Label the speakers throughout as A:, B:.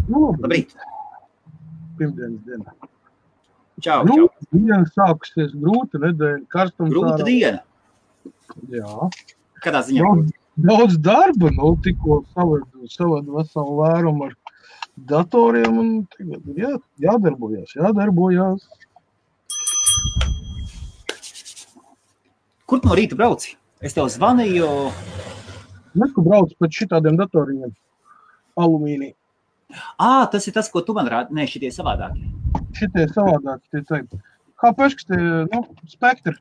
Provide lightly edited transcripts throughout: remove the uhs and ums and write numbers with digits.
A: Labrīt.
B: Pirmdienas diena.
A: Čau,
B: Grūta diena sākusies, grūta nedēļa, karstums.
A: Grūta diena.
B: Jā.
A: Kādā ziņā?
B: Daudz darba, tikko savadu veselu vērumu ar datoriem un tagad jādarbojas.
A: Kur tu no rīta brauci? Es tev zvanīju.
B: Neko braucu pēc šitādiem datoriem. Alumīnija.
A: Tas ir tas, ko tu man rādi. Nē, šitie savādākie.
B: Šitie savādākie, tie teikt. HP, kas tie, Spectre.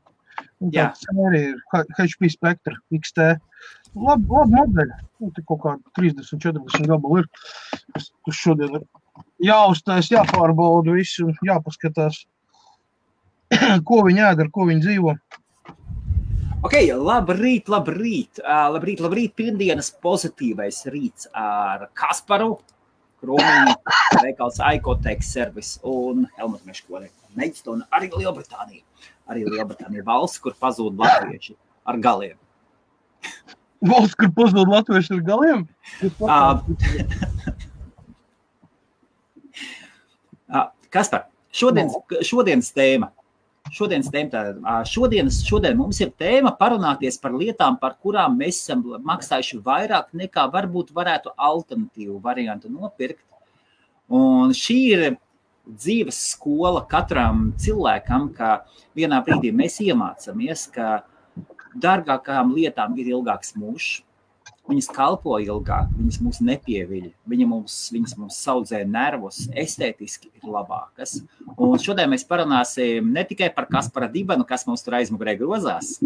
B: Tā sērija ir HP Spectre XT. Labi modeļi. Tik kaut kā 30-40 gabalu ir. Tas šodien ir jāuztais, jāpārbauda visu un jāpaskatās, ko viņi ēd, ar ko viņi dzīvo.
A: Ok, labrīt. Labrīt, pirmdienas pozitīvais rīts ar Kasparu, Krūmiņu, veikals Icotech Service un Helmutu Meškoni. Meģstonu arī Lielbritānija. Arī Lielbritānija valsts, kur pazūd latvieši ar galiem.
B: Valsts, kur pazūd latvieši ar galiem?
A: Kaspar, šodienas tēma. Šodien mums ir tēma parunāties par lietām, par kurām mēs esam maksājuši vairāk nekā varbūt varētu alternatīvu variantu nopirkt. Un šī ir dzīves skola katram cilvēkam, ka vienā brīdī mēs iemācāmies, ka dārgākām lietām ir ilgāks mūžs. Viņas kalpo ilgāk, viņas mūs nepieviļ, viņas mums saudzē nervus, estētiski ir labākas. Un šodien mēs parunāsim ne tikai par Kaspara dibenu, kas mums tur aizmugurē grozās,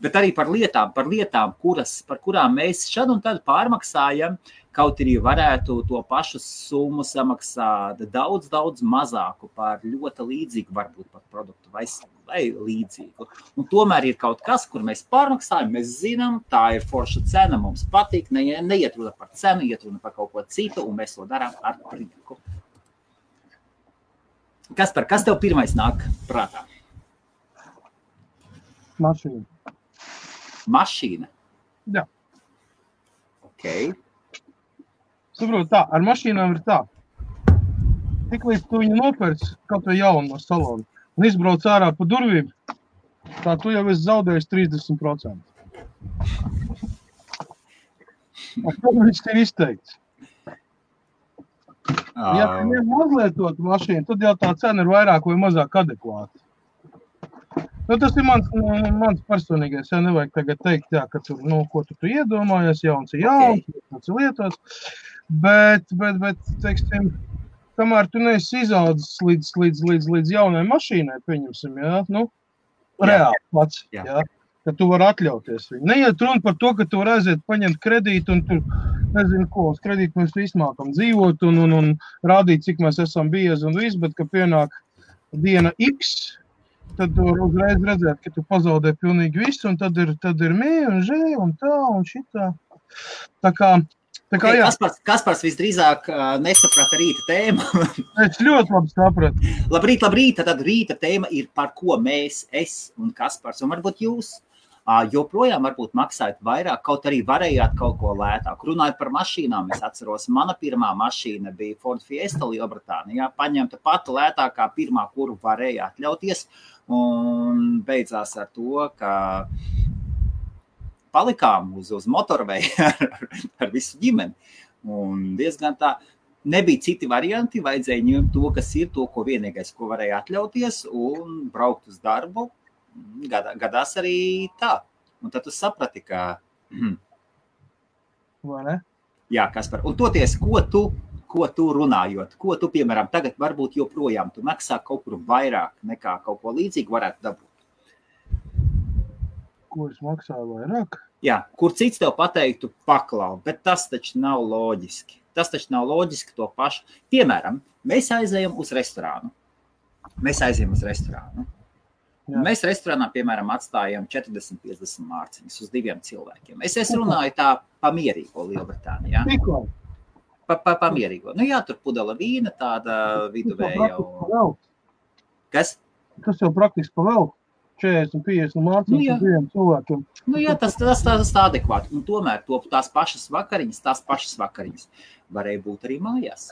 A: bet arī par lietām, par kurām mēs šad un tad pārmaksājam, kaut arī varētu to pašu summu samaksāt daudz mazāku par ļoti līdzīgu, varbūt par produktu vai līdzīgu. Un tomēr ir kaut kas, kur mēs pārmaksājam, mēs zinām, tā ir forša cena, mums patīk, neiet runa par cenu, iet runa par kaut ko citu, un mēs to darām ar prieku. Kaspar, kas tev pirmais nāk prātā? Mašīna?
B: Jā.
A: Ok.
B: Saprot tā, ar mašīnām ir tā. Tik līdz tu viņu nopērci, kaut vai jaunu no salona, un izbrauc ārā pa durvīm, tā tu jau esi zaudējis 30%. Un tad viņš ir izteikts. Ja tu neuzlietot mašīnu, tad jau tā cena ir vairāk vai mazāk adekvāta. Tas ir mans personīgais, nevajag tagad teikt, ka tur, ko tu iedomājies, jauns ir jauns, tas ir lietots, bet, teiksim, kamēr tu neesi izaudzis līdz jaunai mašīnai, pieņemsim, reāli pats, ka tu vari atļauties viņu. Neiet runa par to, ka tu vari aiziet paņemt kredītu un tur, nezinu ko, uz kredītu mēs izmākam dzīvot un rādīt, cik mēs esam biezi un viss, bet, ka pienāk diena X, tad tu uzreiz redzēt, ka tu pazaudē pilnīgi visu, un tad ir mie un žē un tā un šitā. Tā kā jā.
A: Kaspars visdrīzāk nesaprata rīta tēmu.
B: Es ļoti labi sapratu.
A: Labrīt, tad rīta tēma ir par ko mēs, es un Kaspars, un varbūt jūs joprojām varbūt maksājat vairāk, kaut arī varējāt kaut ko lētāk. Runājot par mašīnām, es atceros, mana pirmā mašīna bija Ford Fiesta Lielbritānijā, paņemta pati lētākā pirmā, kuru varēja atļauties, un beidzās ar to, ka palikām uz motorveju ar visu ģimeni. Un diezgan tā, nebija citi varianti, vajadzēja ņemt to, kas ir, to, ko vienīgais, ko varēja atļauties, un braukt uz darbu. Gadās arī tā. Un tad tu saprati, ka...
B: Vai ne?
A: Jā, Kaspar. Un toties, ko tu runājot? Ko tu, piemēram, tagad varbūt joprojām tu maksā kaut kur vairāk nekā kaut ko līdzīgu varētu dabūt?
B: Ko es maksāju vairāk?
A: Jā, kur cits tev pateiktu paklau, bet tas taču nav loģiski. To pašu. Piemēram, mēs aizējam uz restorānu. Jā. Mēs restorānā, piemēram, atstājam 40-50 mārciņas uz 2 cilvēkiem. Es runāju tā pamierīgo Lielbritānijā.
B: Tikko?
A: Pamierīgo. Jā, tur pudela vīna, tāda viduvēja.
B: Kas? Tas jau praktiski pavēl. 40, 50 mācības diviem cilvēkiem.
A: Nu jā, tas adekvāti. Un tomēr tās pašas vakariņas varēja būt arī mājās.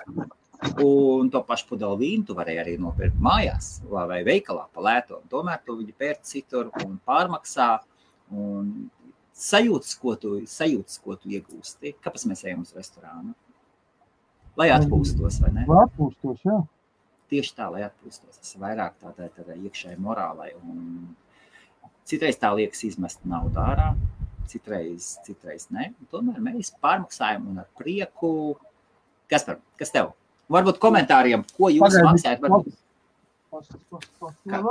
A: Un to pašu pudeli vīnu tu varēji arī nopirkt mājās vai veikalā pa lēto. Un tomēr tu viņu pērc citur un pārmaksā un sajūtas, ko tu iegūsti. Kāpēc mēs ejam uz restorānu? Lai atpūstos, vai ne?
B: Lai atpūstos, jā.
A: Tieši tā, lai atpūstos. Tas vairāk tādā iekšēji morālai. Un citreiz tā liekas izmest naudu ārā, citreiz ne. Un tomēr mēs pārmaksājam un ar prieku. Kas tev? Varbūt komentāriem, ko jūs maksājat?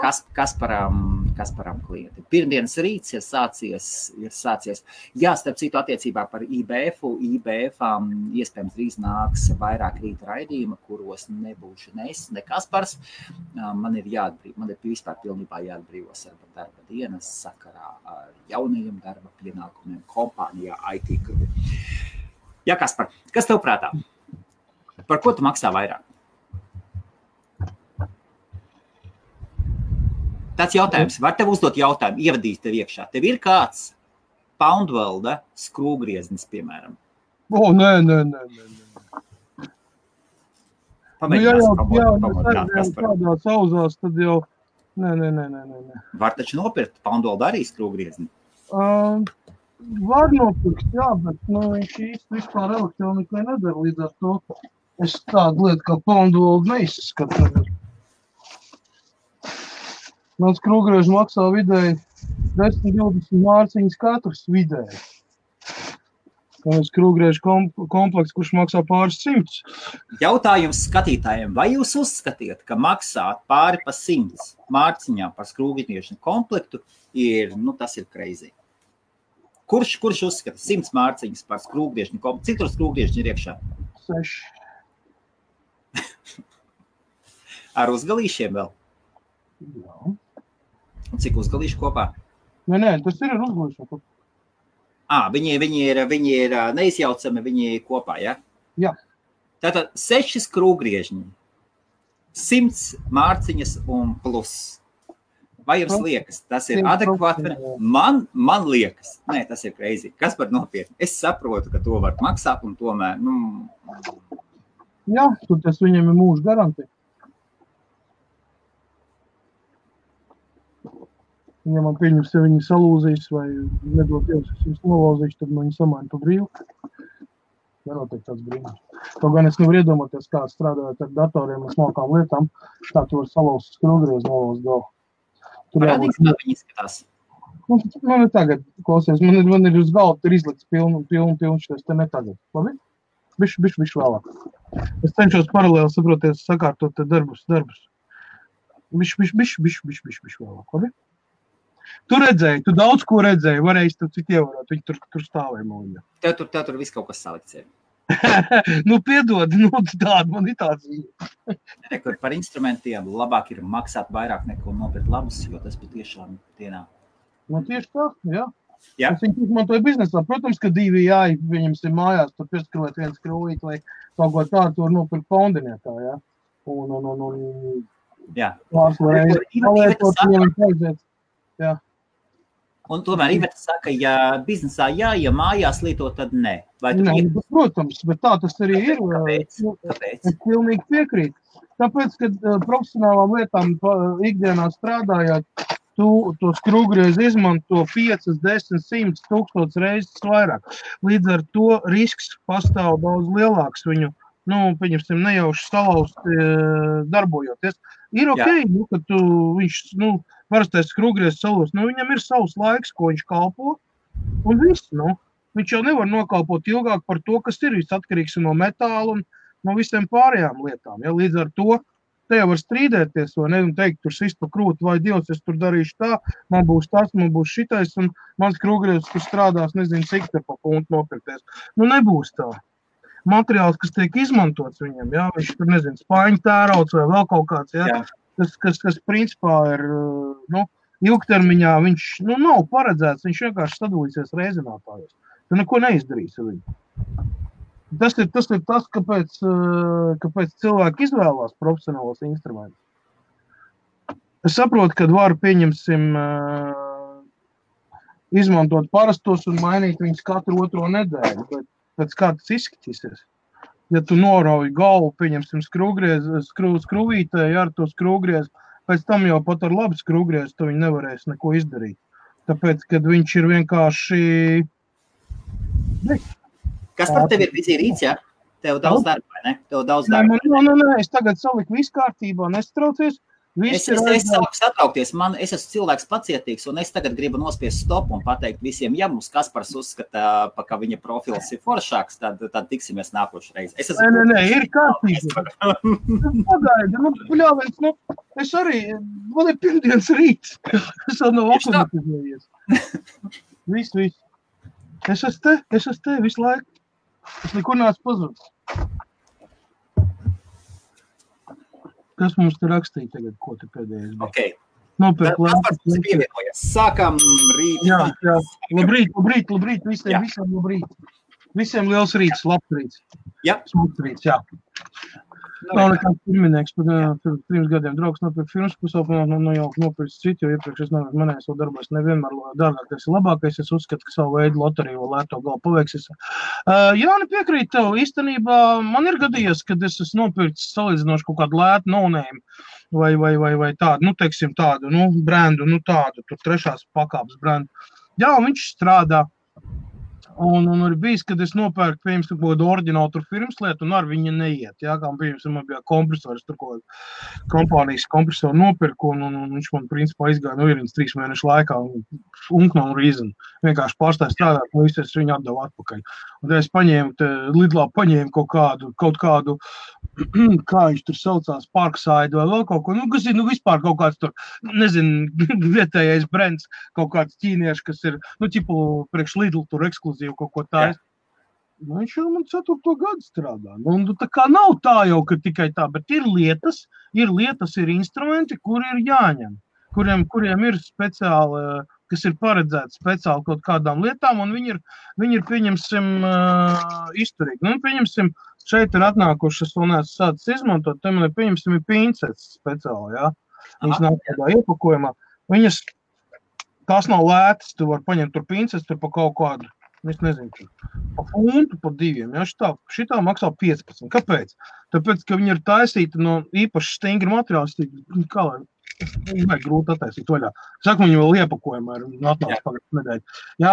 A: Kasparam klienti. Pirmdienas rīts ir sācies. Jā, starp citu attiecībā par IBF-u. IBF-ām iespējams drīz nāks vairāk rīta raidījuma, kuros nebūšu ne Kaspars. Man ir vispār pilnībā jāatbrīvos ar darba dienas sakarā ar jaunajiem darba pienākumiem kompānijā IT Group. Jā, Kaspar, kas tev prātā? Par ko tu maksā vairāk? Tāds jautājums. Var tev uzdot jautājumu, ievadīt tev iekšā. Tev ir kāds Poundwelda skrūvgrieznis, piemēram?
B: Nē.
A: Pamēģinās
B: kādā sauzās, tad jau... Nē.
A: Var taču nopirkt Poundwelda arī skrūvgriezni?
B: Var nopirkt, jā, bet viņš īsti vispār elektronikai nedara līdz ar to. Es tādu lietu kā Poundwelda neizskatu. Mans skrūvgriežs maksā vidēji 10-20 mārciņas katrs vidēji. Skrūvgriežu komplekts, kurš maksā pāris 100.
A: Jautājums skatītājiem, vai jūs uzskatiet, ka maksāt pāri pa 100 mārciņām par skrūvgriežu komplektu tas ir crazy? Kurš uzskata 100 mārciņas par skrūvgriežu komplektu? Cik tur skrūvgriežu ir iekšā?
B: 6.
A: Ar uzgalīšiem vēl?
B: Jā.
A: Un cik uzgalīšu kopā?
B: Nē, tas ir ar uzgalīšanu.
A: Viņi ir neizjaucami, viņi kopā, ja?
B: Jā.
A: Tātad 6 skrūvgriežņi, 100 mārciņas un plus. Vai jums liekas, tas ir adekvāti? Man liekas, nē, tas ir crazy. Kas par nopietni? Es saprotu, ka to var maksāt un tomēr,
B: Jā, tas viņam ir mūža garantija. Ja man pieņems, ja viņi salūzīs vai nedod Dievs, es viņus nolauzīšu, tad man viņi samaina pa brīvu. Nenotiek tāds brīnums. To gan es nevaru iedomāties, kā strādājot ar datoriem un smalkām lietām, tā tu var salauzt skrūvgriezu nolauzt galvu.
A: Parādīgs, kā viņi izskatās?
B: Man ir tagad, klausies, man ir uz galvu, tur izlikts pilnu šies, te ne tagad. Labi? Bišķi vēlāk. Es cenšos paralēli saproties, sakārtot te darbus. Bišķi vēlāk. Labi? Tu redzēji, tu daudz ko redzēji, varēji tu cik ievarot, viņi tur stāvēja mūļā.
A: Tev tur viss kaut kas salikts ir.
B: Piedod, tāda man ir tāds viņa.
A: Rekur par instrumentiem labāk ir maksāt vairāk neko nopirkt labus, jo tas patiešām dienā.
B: Tieši tā, jā.
A: Jā.
B: Es viņu izmantoju biznesā. Protams, ka DVI viņam ir mājās, tur pieskrūvēt viens skrūvīt, lai kaut ko tādu tur nopirkt Poundiniekā, jā.
A: Jā.
B: Palietot viņam aiziet. Jā.
A: Un tomēr Iveta saka, ja biznesā jā, ja mājās lieto, tad nē.
B: Protams, bet tā tas arī ir.
A: Kāpēc?
B: Es pilnīgi piekrītu. Tāpēc, kad profesionālām lietām ikdienā strādājot, tu to skrūvgriezu izmanto 5, 10, 100, 1000 reizes vairāk. Līdz ar to risks pastāv daudz lielāks viņu, pieņemsim, nejauši salauzt darbojoties. Ir okei, ka viņš, parastais skrūvgriezs salūst, viņam ir savs laiks, ko viņš kalpo, un viss, viņš jau nevar nokalpot ilgāk par to, kas ir viss atkarīgs no metāla un no visiem pārējām lietām. Ja? Līdz ar to te jau var strīdēties, vai ne, un teikt, tur sist pa krūti, vai Dievs, es tur darīšu tā, man būs tas, man būs šitais, un mans skrūvgriezs tur strādās, nezinu, cik te pa punktu nopirkties. Nebūs tā. Materiāls, kas tiek izmantots viņam, ja? Viņš tur, nezinu, spaiņu tērauts vai vēl kaut kāds, ja? Kas principā ir, ilgtermiņā viņš, nav paredzēts, viņš vienkārši sadalīsies reizinātājos. Tu neko neizdarīs ar viņu. Tas ir tas, kāpēc cilvēki izvēlās profesionālos instrumentus. Es saprotu, ka varu pieņemsim izmantot parastos un mainīt viņus katru otro nedēļu, bet pēc kā tas izskatīsies. Ja tu norauji galvu, pieņemsim skrūvītē, ja ar to skrūvgriez, pēc tam jau pat ar labu skrūvgriez, tu viņi nevarēs neko izdarīt. Tāpēc, kad viņš ir vienkārši...
A: Kas par tevi ir vizīrīts, ja? Tev daudz darba, vai ne? Tev daudz darba.
B: Nē, es tagad saliku visu kārtībā, nestraucies.
A: Es sāku satraukties, es esmu cilvēks pacietīgs, un es tagad gribu nospiest stopu un pateikt visiem, ja mums Kaspars uzskata, ka viņa profils ir foršāks, tad tiksimies nākošreiz.
B: Nē, ir kārtībā. Pagaidi, bļāviens, es arī, man ir pirmdienas rīts, es vēl nav akumatizējies. Viss. Es esmu te visu laiku. Es nekur nāc pazudis. Kas mums te rakstīja tagad, ko te pēdējais bija?
A: Okay.
B: Nopērk
A: lēpas pievienojas. Sākam rīt.
B: Jā. Labrīt. Visiem labrīt. Visiem liels rīts, labs rīts.
A: Jā.
B: Smuks rīts, jā. Nav nekāds pirminieks, pirms gadiem draugs nopirkt filmas, jau nopirkt citu, jo iepriekš es manējos vēl darbos nevienmēr dārgākais ir labākais. Es uzskatu, ka savu veidu loteriju vēl lēto galu paveiksies. Jāni piekrīt tev, īstenībā man ir gadījies, kad es esmu nopirkts salīdzinoši kaut kādu lētu no-name vai tādu, teiksim tādu, brendu, tādu, tur trešās pakāpes brendu. Jā, viņš strādā. Un ir bijis, kad es nopērku, piemēram, kaut kādu oriģinālu tur firmas lietu, un ar viņu neiet. Jā, kā, piemēram, man bija kompresors, tur kaut kompānijas kompresoru nopirku, un viņš man, principā, izgāja no ierīnas 3 mēnešu laikā, un no reason. Vienkārši pārstāja strādāt, un visu es viņu atdevu atpakaļ. Un tad es Lidlā paņēmu kaut kādu, kā viņš tur saucās, Parkside vai vēl kaut ko, kas ir, vispār kaut kāds tur, nezinu, vietējais brands, kaut kāds ķīnieši, kas ir, ķipu priekš Lidl tur ekskluzīvi kaut ko tā. Viņš jau man 4. gadu strādā. Tā kā nav tā jau, ka tikai tā, bet ir lietas, ir instrumenti, kuri ir jāņem, kuriem ir speciāli, kas ir paredzēti speciāli kaut kādām lietām, un viņi ir pieņemsim, izturīgi. Pieņemsim, šeit ir atnākušas, un es sācis izmantot, te man ir pieņemsim pincetes speciāli, jā. Viņas nav tādā iepakojumā. Tās nav lētas, tu var paņemt tur pincetes, tur pa kaut kādu, es nezinu, pa funtu, pa 2, jā, šitā maksā 15. Kāpēc? Tāpēc, ka viņi ir taisīti no īpaši stingri materiāli, kā lai, vajag grūti attaisīt vaļā. Saku, viņi vēl iepakojumā ir atnāks pagājušajā nedēļā. Jā.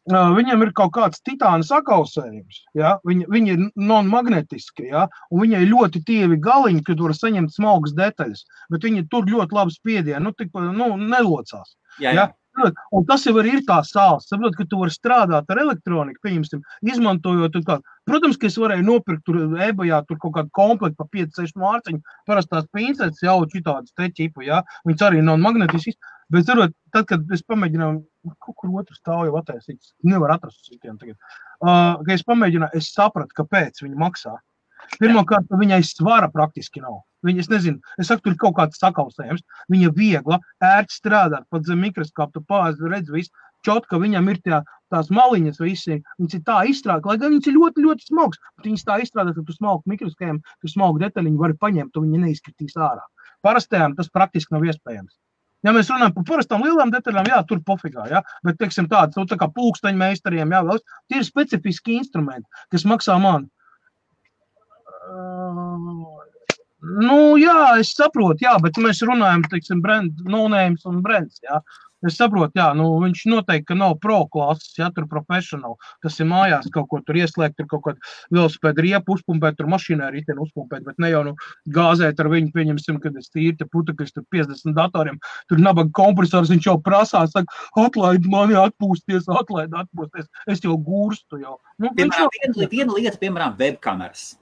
B: Viņam ir kaut kāds titāna sakausējums, ja? Viņi ir non-magnetiski, ja? Un viņai ļoti tievi galiņi, kad var saņemt smalkas detaļas, bet viņi tur ļoti labi spiedienu, nelocās.
A: Jā.
B: Un tas jau arī ir tā sāls, saprot, ka tu vari strādāt ar elektroniku, pieņemsim, izmantojot kaut kādu. Protams, ka es varēju nopirkt tur eBayā tur kaut kādu komplektu pa 5-6 mārciņu, parastās pincetes jau šitādas te ķipu, ja? Viņas arī non-magnetiski. Bet, zarot, tad, kad es pamēģināju, kaut kur otru stāvu jau attaisīt, nevar atrast citiem tagad, kad es pamēģināju, es sapratu, kāpēc viņi maksā. Pirmkārt, viņai svara praktiski nav. Es nezinu, es saku, tur ir kaut kāds sakausējums, viņa viegla, ērti strādāt, pat zem mikroskopu, tu pāzi redz visu, čotka, viņam ir tās maliņas visi, viņas ir tā izstrādāt, lai gan viņas ir ļoti, ļoti smalks, bet viņas tā izstrādāt, ka tu smalku mikroskopiem, tu smalku detaļiņu vari paņemt, un viņi neizskatīs ārā. Parastajām tas praktiski nav iespējams. Ja mēs runājam par parastām lielām detaļām, jā, tur pofigā, jā, bet, teiksim, tāds, tā kā pulksteņu meistariem, jā, vēl, tie ir specifiski instrumenti, kas maksā man. Jā, es saprotu, jā, bet mēs runājam, teiksim, no-names un brands, jā. Es saprotu, jā, viņš noteikti, ka nav pro klases, jā, tur professional, kas ir mājās kaut ko tur ieslēgt, tur kaut kādu velosipēdu riepu uzpumpēt, tur mašīnā riteni uzpumpēt, bet ne jau gāzēt ar viņu, pieņemsim, kad es tīri te putekļus, tur 50 datoriem, tur nabaga kompresors, viņš jau prasās, saka, atlaid mani atpūsties, es jau gūrstu jau.
A: Viena lieta, piemēram, webkameras.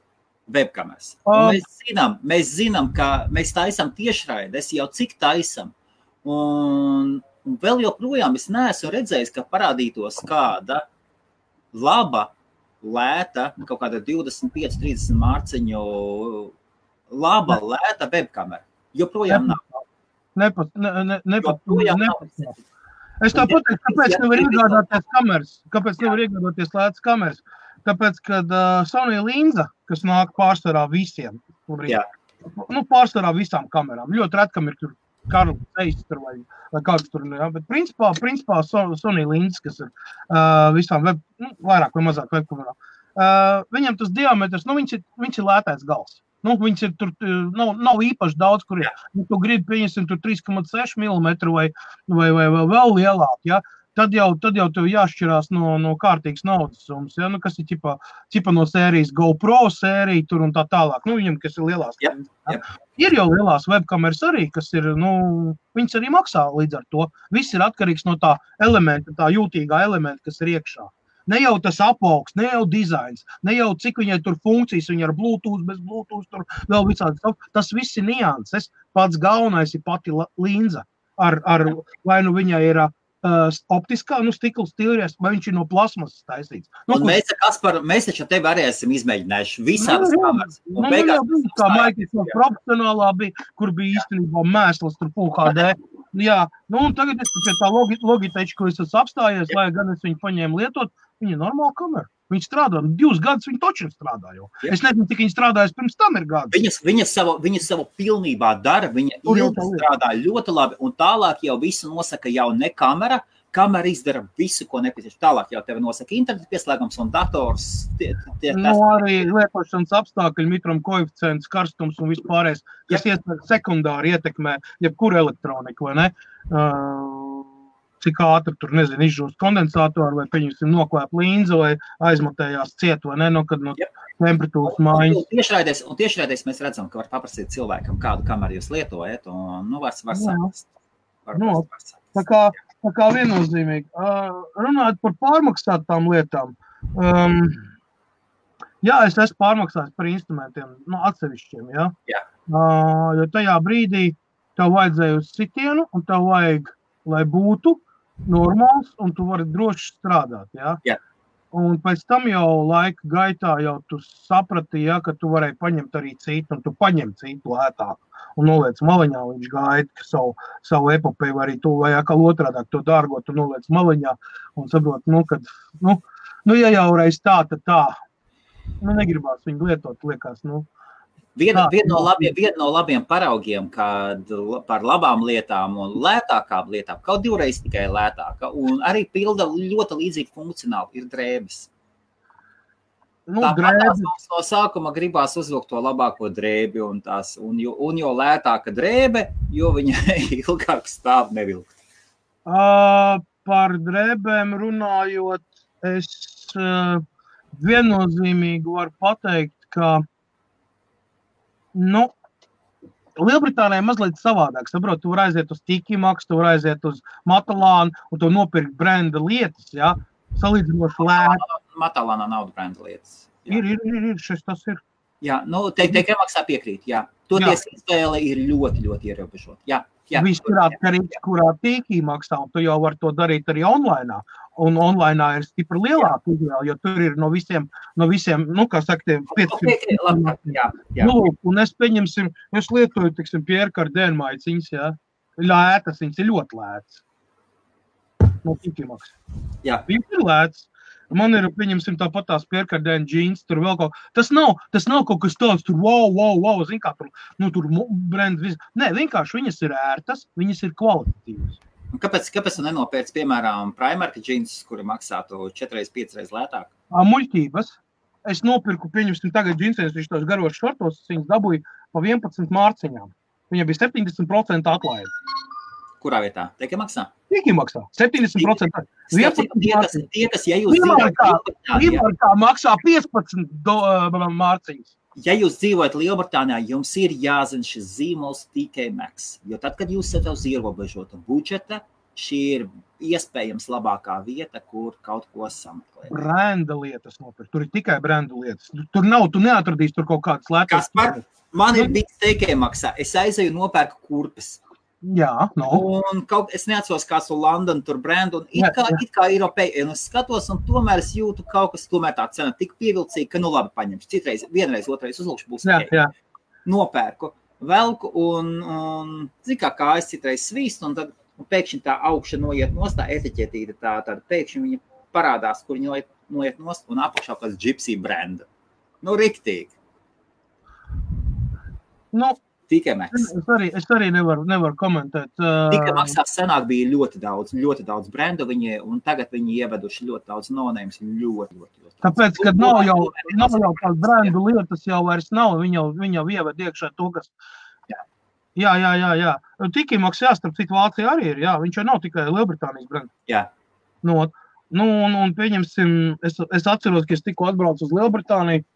A: Mēs zinām, ka mēs taisam tiešraides, jau cik taisam. Un vēl joprojām es neesmu redzējis, ka parādītos kāda laba, lēta, kaut kāda 25-30 mārciņu laba, lēta webkamera. Joprojām nav. Joprojām nav.
B: Es tā pateiktu, kāpēc nevar iegādāties kameras? Kāpēc nevar iegādāties lētas kameras? Tāpēc, kad Sony linza, kas nāk pārsvarā visiem, pārsvarā visām kamerām, ļoti retkam ir tur Karls Zeiss tur vai kāds tur, jā, bet principā Sony Linz, kas ir visām vairāk vai mazāk webkamerā. Viņam tas diametrs, viņš ir lētais gals. Viņš ir tur, nav īpaši daudz, kur ir. Tu gribi, pieņemsim, tur 3,6 mm vai vēl lielāk, ja? Tad jau tev jāšķirās no kārtīgas naudas summas, ja? Kas ir ķipa no sērijas GoPro sērija tur un tā tālāk. Viņam, kas ir lielās. Ja? Ir jau lielās webkameras arī, kas ir, viņas arī maksā līdz ar to. Viss ir atkarīgs no tā elementa, tā jūtīgā elementa, kas ir iekšā. Ne jau tas apaugs, ne jau dizains, ne jau cik viņai tur funkcijas, viņa ar Bluetooth, bez Bluetooth, tur vēl visādi. Tas viss ir nianses. Pats galvenais ir pati linza. Vai viņai ir optiskā, stikla stīries, vai viņš ir no plasmasas taisīts.
A: Mēs taču tevi arī esam izmēģinājuši visādas kameras.
B: Kā Microsoft profesionālā bija, kur bija īstenībā mēsls tur UHD. Jā, un tagad es pie tā Logitech, ko es esmu apstājies, lai gan es viņu paņēmu lietot, viņa ir normāla kamera. Viņa strādā, 2 gadus viņa točiem strādā jau. Es nezinu, cik viņa strādājas pirms tam ir gadus.
A: Viņa savu pilnībā dara, viņa strādā ļoti labi, un tālāk jau visu nosaka jau ne kamera. Kamera izdara visu, ko nepieciešams. Tālāk jau tevi nosaka internetu pieslēgums un dators.
B: Arī lietošanas apstākļi, mitram koeficients, karstums un vispārējais, kas sekundāri ietekmē jebkuru elektroniku, vai ne? Cik ātri tur, nezinu, izžūst kondensātoru, vai pieņemsim noklēp līnzi, vai aizmatējās ciet, vai ne, kad no temperatūras mājas.
A: Un tiešraidēs mēs redzam, ka var paprasīt cilvēkam, kādu kameru jūs lietojat, un var saprast.
B: Tā kā viennozīmīgi. Runājot par pārmaksātām lietām, jā, es esmu pārmaksājis par instrumentiem, atsevišķiem, jā. Jo tajā brīdī tev vajadzēja uz sitienu, un tev vajag, lai būtu normāls, un tu vari droši strādāt, jā.
A: Jā.
B: Un pēc tam jau laika gaitā jau tu saprati, ja, ka tu varēji paņemt arī citu, un tu paņem citu lētāk. Un noliec maliņā, viņš gaida savu epopeju, vai arī tu, vai atkal otrādāk to dārgo, tu noliec maliņā un saprot, ja jau reiz tā, tad tā. Negribās viņu lietot, liekas,
A: Viena no labiem paraugiem, kad par labām lietām un lētākām lietām, kaut 2 reizes tikai lētāka, un arī pilda ļoti līdzīgi funkcionāli, ir drēbes. Tāpat no sākuma gribās uzvilkt to labāko drēbi, un jo lētāka drēbe, jo viņa ilgāk stāv nevilkt.
B: Par drēbēm runājot, es viennozīmīgi varu pateikt, ka Lielbritānijā mazliet savādāk. Saprot, tu var aiziet uz Tiki Maxx, tu var aiziet uz Matalānu un tu nopirkt brenda lietas, jā, salīdzinoši lēti.
A: Matalānā nav brenda lietas. Jā.
B: Ir, tas ir.
A: Jā, Tiki Maxxā piekrīt, jā. Toties izvēle ir ļoti, ļoti ierobežota. Jā.
B: Viss ir atkarīgs, kurā Tiki Maxxā, un tu jau var to darīt arī online. Un online ir stipri lielāka izvēle, jo tur ir no visiem, kā saka, 500.
A: Jā.
B: Un es pieņemsim, es lietoju, Pierre Cardin maiciņas, jā. Lētas, viņas ir ļoti lētas. No Tiki Maxx.
A: Jā.
B: Viņas ir lētas. Man ir, pieņemsim, tāpat tās Pierre Cardin džīns, tur vēl kaut. Tas nav kaut kas tāds, tur wow, zin kā tur brand viss. Nē, vienkārši viņas ir ērtas, viņas ir kvalitatīvas.
A: Kāpēc tu nenopērci, piemēram, Primark džīnsus, kuri maksātu 4-5 reizes lētāk?
B: Muļķības. Es nopirku, pieņemsim, tagad džinsēs, viņš tos garos šortos, viņas dabūja pa 11 mārciņām. Viņa bija 70% atlaide.
A: Kurā vietā? Tiki Maxxā?
B: Tiki Maxxā. 70%.
A: Tie, kas, ja jūs
B: Lielbritānijā maksā 15 mārciņas.
A: Ja jūs dzīvojat Lielbritānijā, jums ir jāzina šis zīmols Tiki Maxx, jo tad, kad jūs esat uz ierobežota budžeta, šī ir iespējams labākā vieta, kur kaut ko sameklēt.
B: Brenda lietas nopirkt. Tur ir tikai brenda lietas. Tu neatradīsi tur kaut kādas lētas.
A: Man ir bijis Tiki Maxxā. Es aizēju nopērku kurpes.
B: Jā,
A: Un es neatceros kāds to London tur brendu, un it kā Eiropēja, un es skatos, un tomēr es jūtu kaut kas, tomēr tā cena tik pievilcīga, ka labi paņemšu. Citreiz, vienreiz, otrais uzlūkšu būs
B: jā.
A: Nopērku, velku, un zin kā kājas citreiz svīst, un tad pēkšņi tā augša noiet nost, tā etiķetīte, tāda pēkšņi viņa parādās, kur viņa noiet nost, un apakšā kāds Gypsy brenda. Riktīgi. Tikai maksas.
B: Es arī nevaru komentēt.
A: Tikai maksās senāk bija ļoti daudz brendu, un tagad viņi ieveduši ļoti daudz no-names, ļoti.
B: Tāpēc, kad nav jau tās brendu lietas jau vairs nav, viņi jau ieved iekšā to, kas... Jā. Tiki maksās, starp citu Vācija arī ir, jā, viņš jau nav tikai Lielbritānijas brendu.
A: Jā.
B: Un pieņemsim, es atceros, ka es tikko atbraucu uz Lielbritāniju,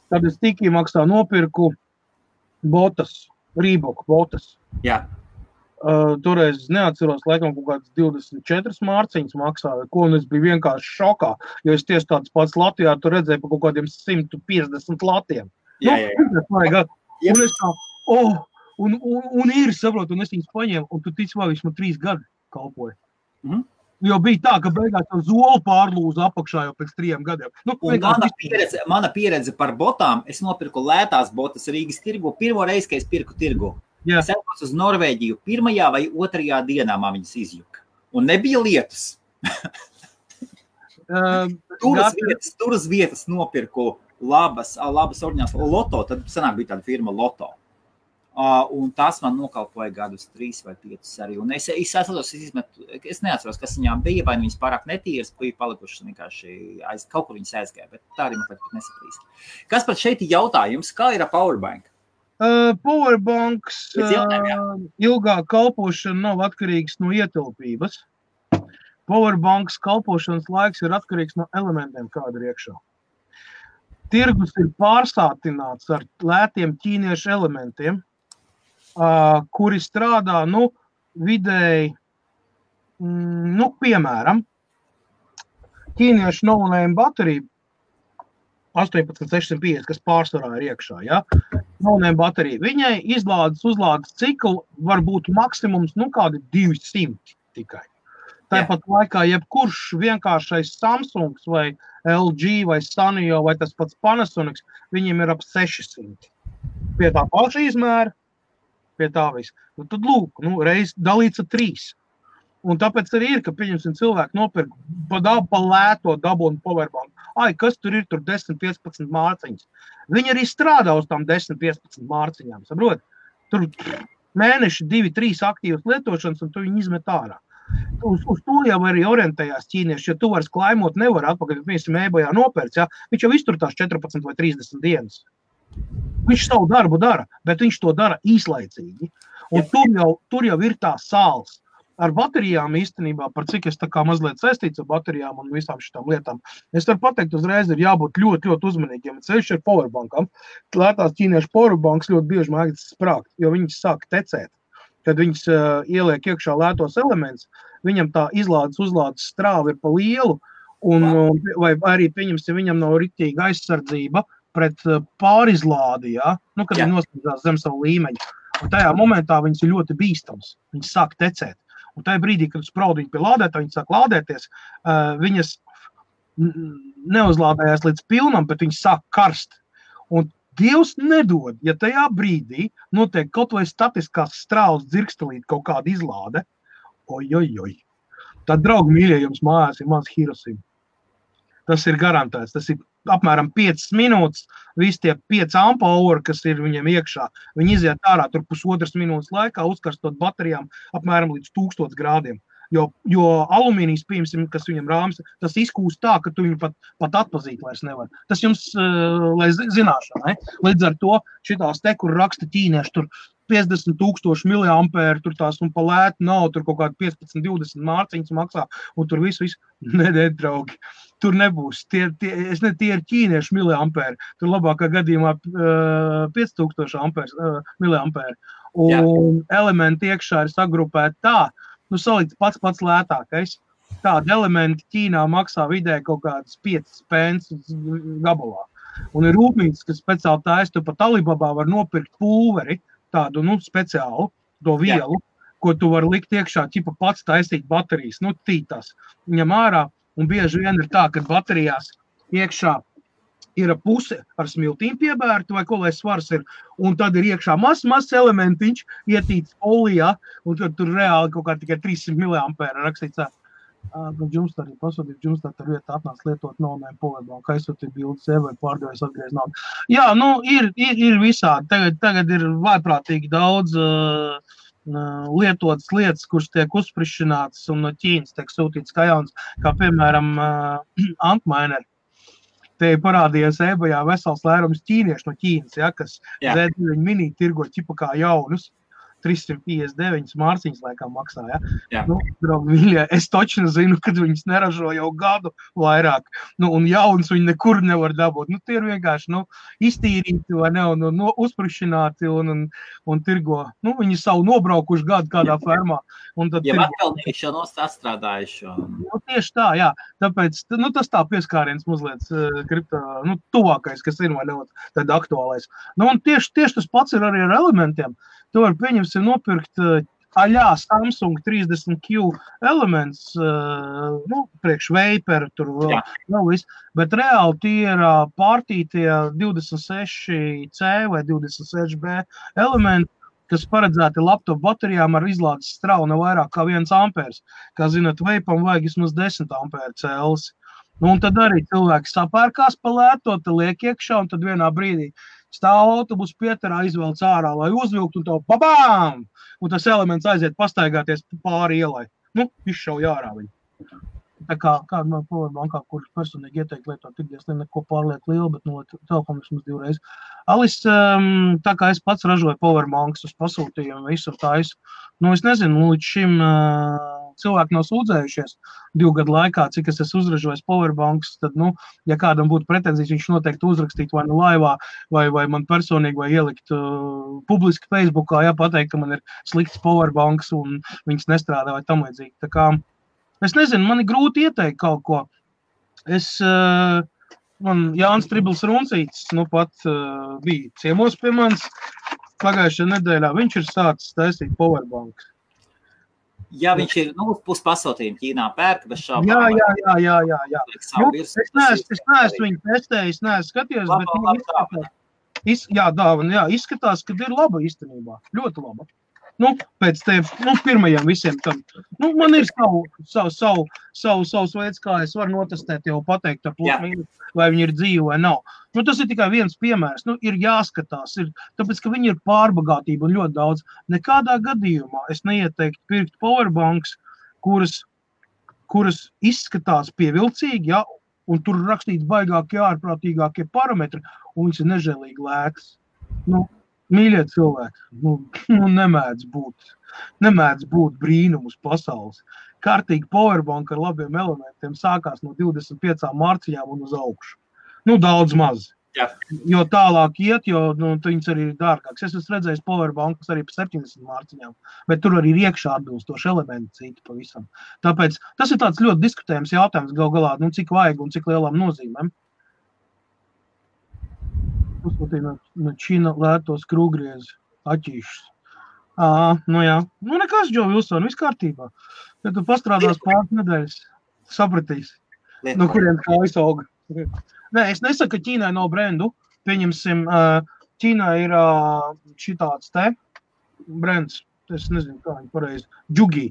B: tad es Tiki maksā nopirku botas. Rīboku botas.
A: Jā.
B: Toreiz neatceros, laikam kaut kāds 24 mārciņas maksāja, ko un es biju vienkārši šokā, jo es tieši tāds pats Latvijā tu redzēju pa kaut kādiem 150 latiem.
A: Jā.
B: Un es tā, un ir, saprotu, un es viņus paņēmu, un tu tici, vai viņš man 3 gadi kalpoja. Jo bija tā, ka beigās jau zolu pārlūza apakšā jau pēc 3 gadiem.
A: Mana pieredze par botām, es nopirku lētās botas Rīgas tirgu, pirmo reizi, kad es pirku tirgu.
B: Jā.
A: Es aizbraucu uz Norvēģiju, 1. vai 2. dienā man viņas izjuka. Un nebija lietus. Tur uz vietas nopirku labas oriģināls Loto, tad senāk bija tāda firma Loto. Un tas man nokalpoja gadus 3 vai 5 arī. Un es neatceros, kas viņām bija, vai viņas pārāk netīras, bija palikušas vienkārši kaut kur viņas aizgāja, bet tā arī man pat nesaprīst. Kas pat šeit ir jautājums, kā ir ar Powerbank?
B: Powerbanks ilgāk kalpošana nav atkarīgs no ietilpības. Powerbanks kalpošanas laiks ir atkarīgs no elementiem, kāda ir iekšā. Tirgus ir pārsātināts ar lētiem ķīniešu elementiem, kuri strādā, vidēji, piemēram, ķīniešu no-name baterija 18650, kas pārsvarā ir iekšā, ja? No-name baterija. Viņai uzlādes ciklu var būt maksimums, kādi 200 tikai. Tāpat laikā jebkurš vienkāršais Samsungs vai LG vai Sanyo vai tas pats Panasonics, viņiem ir ap 600. Pie tā paša izmēra, pie tā viss. Tad lūk, reiz dalīts ar 3. Un tāpēc arī ir, ka pieņemsim cilvēku nopirk pa lēto dabūnu Powerbank. Kas tur ir 10-15 mārciņas? Viņi arī strādā uz tām 10-15 mārciņām, saprot? Tur mēneši 2-3 aktīvas lietošanas, un tu viņi izmet ārā. Uz to jau arī orientējās ķīnieši, jo tu varas klaimot nevar atpakaļ, viņš eBayā nopērts, ja? Viņš jau izturtās 14 vai 30 dienas. Viņš savu darbu dara, bet viņš to dara īslaicīgi. Un tur jau ir tā sāls. Ar baterijām īstenībā, par cik es tā kā mazliet saistīts ar baterijām un visām šitām lietām, es varu pateikt uzreiz, ir jābūt ļoti, ļoti uzmanīgiem. Ceļš ar powerbankam. Lētās ķīniešu powerbanks ļoti bieži mēģina sprākt, jo viņas sāk tecēt. Kad viņas ieliek iekšā lētos elements, viņam tā uzlādes strāva ir pa lielu, vai arī pieņemsim, viņam nav ritīga aizsardzība pret pārizlādi, ja? Kad viņi noslēdzās zem savu līmeņu. Un tajā momentā viņas ir ļoti bīstams, viņas sāk tecēt. Un tajā brīdī, kad spraud viņu pie lādētā, viņas sāk lādēties, viņas neuzlādējās līdz pilnam, bet viņas sāk karst. Un Dievs nedod, ja tajā brīdī notiek kaut vai statiskās strāles dzirkstelīt kaut kāda izlāde, tad, draugi mīļie, jums mājās ir maz Hirošima. Tas ir garantēts, tas ir apmēram 5 minūtes, visi tie 5 ampuli, kas ir viņiem iekšā, viņi iziet ārā tur 1,5 minūtes laikā, uzkarstot baterijām apmēram līdz 1000 grādiem. Jo alumīnijas, pieņemsim, kas viņam rāms, tas izkūst tā, ka tu viņu pat atpazīt vairs nevar. Tas jums, lai zināšanai, līdz ar to šitās te, kur raksta ķīnieši, tur 50,000 miliampēri, tur tās un pa lētu nav, tur kaut kādi 15-20 mārciņas maksā, un tur visu, nedē, draugi, tur nebūs. Tie ir ķīnieši miliampēri, tur labākā gadījumā 5000 miliampēri. Un elementi iekšā ir sagrupēti tā, salīdz pats lētākais. Tādi elementi Ķīnā maksā vidēji kaut kādas 5 pence gabalā. Un ir rūpnīcas, kas speciāli taisa, tu pat Alibabā var nopirkt pulveri, tādu, speciālu, to vielu, ko tu vari likt iekšā, ķipa pats taisīt baterijas, tītās. Viņam ārā, un bieži vien ir tā, ka baterijās iekšā ir puse ar smiltīm piebērta, vai ko lai svars ir, un tad ir iekšā mazs elementiņš, ietīts olijā, un tad tur reāli kaut kā tikai 300 miliampēra rakstīts. Jums arī pasūtīt, jums tā vieta atnāc lietot no powerbank, aizsūtīt bildes, vai pārdevējs atgriezt naudu. Jā, ir visādi. Tagad ir vaiprātīgi daudz lietotas lietas, kuras tiek uzsprišinātas un no Ķīnas tiek sūtītas kā jauns, kā piemēram Antminer. Te parādījās eBayā vesels lērums ķīnieši no Ķīnas, ja, kas Z9 mini tirgo ķipa kā jaunus. 359 mārciņas laikam maksā, ja? Jā. Draugi, mīļie, es točni zinu, kad viņas neražo jau gadu vairāk, un jauns viņi nekur nevar dabūt. Tie ir vienkārši, iztīrīti vai ne, un uzprišināti un tirgo. Viņi savu nobraukuši gadu kādā fermā.
A: Ja atpelnīši jau atstrādājuši.
B: Tieši tā, jā. Tāpēc, tas tā pieskāriens mazliet kripto, tuvākais, kas ir vai ne, tad aktuālais. Un tieši tas pats ir arī ar elementiem. Tu var pieņemsim nopirkt aļā Samsung 30Q elements, priekš Vapor, tur vēl viss, bet reāli tie ir pārtītie 26C vai 26B elementi, kas paredzēti laptop baterijām ar izlādes straunu vairāk kā 1 ampērs. Kā zināt, Vapam vajag vismaz 10 ampēru cēlis. Un tad arī cilvēki sapērkās pa lēto, te liek iekšā, un tad vienā brīdī stāv autobus pietarā, izvelc ārā, lai uzvilkt, un to babām! Un tas elements aiziet pastaigāties pāri ielai. Izšauj ārā viņu. Tā kā kāda no powerbankā, kurš personīgi ieteikt lietot, tikdies neko pārlieku lielu, bet telefonu vismaz 2 reizes. Alis, tā kā es pats ražoju powerbanks uz pasūtījumu, visu taisu, es nezinu, līdz šim cilvēki nav sūdzējušies 2 gadu laikā, cik es esmu uzražojis powerbanks, tad, ja kādam būtu pretenzijas, viņš noteikti uzrakstītu vai laivā, vai man personīgi, vai ielikt publiski Facebookā, pateikt, ka man ir slikts powerbanks un viņas nestrādā vai tam līdzīgi. Tā kā, es nezinu, man ir grūti ieteikt kaut ko. Man Jānis Tribls Runcītis, pat bija ciemos pie manis pagājušajā nedēļā, viņš ir sācis taisīt powerbanks.
A: Ja viņš ir, pus pasūtījumu Ķīnā pērk, bez šābām.
B: Jā. Es neesmu viņu testējis, neesmu skatījis, bet dāvana, izskatās, ka ir laba īstenībā, ļoti laba. Pēc pirmajiem visiem tam. Man ir savs veids, kā es varu notestēt, jau pateikt, vai viņi ir dzīvi vai nav. Tas ir tikai viens piemērs. Ir jāskatās, tāpēc, ka viņi ir pārbagātība un ļoti daudz. Nekādā gadījumā es neieteiktu pirkt powerbanks, kuras izskatās pievilcīgi, un tur rakstīt baigākie, ārprātīgākie parametri, un viņas ir nežēlīgi lētas. Mīļie cilvēki, nemēdz būt brīnumus pasaules. Kārtīgi powerbank ar labiem elementiem sākās no 25 mārciņām un uz augšu. Daudz maz. Jā. Jo tālāk iet, jo viņas arī ir dārgāks. Es esmu redzējis powerbankus arī pa 70 mārciņām, bet tur arī ir iekšā atbilstoši elementi citi pavisam. Tāpēc tas ir tāds ļoti diskutējums jautājums gal galā, cik vajag un cik lielām nozīmēm. Uzsūtīja no Čīna lētos krūgriezi, aķīšus. Jā. Nekas, Džo Vilson, viss kārtībā. Ja tu pastrādās pāris nedēļas, sapratīsi, no kuriem kājas auga. Nē, es nesaku, ka Ķīnai nav brendu. Pieņemsim, Ķīnai ir šitāds te brends, es nezinu, kā viņi pareizi, Džugī.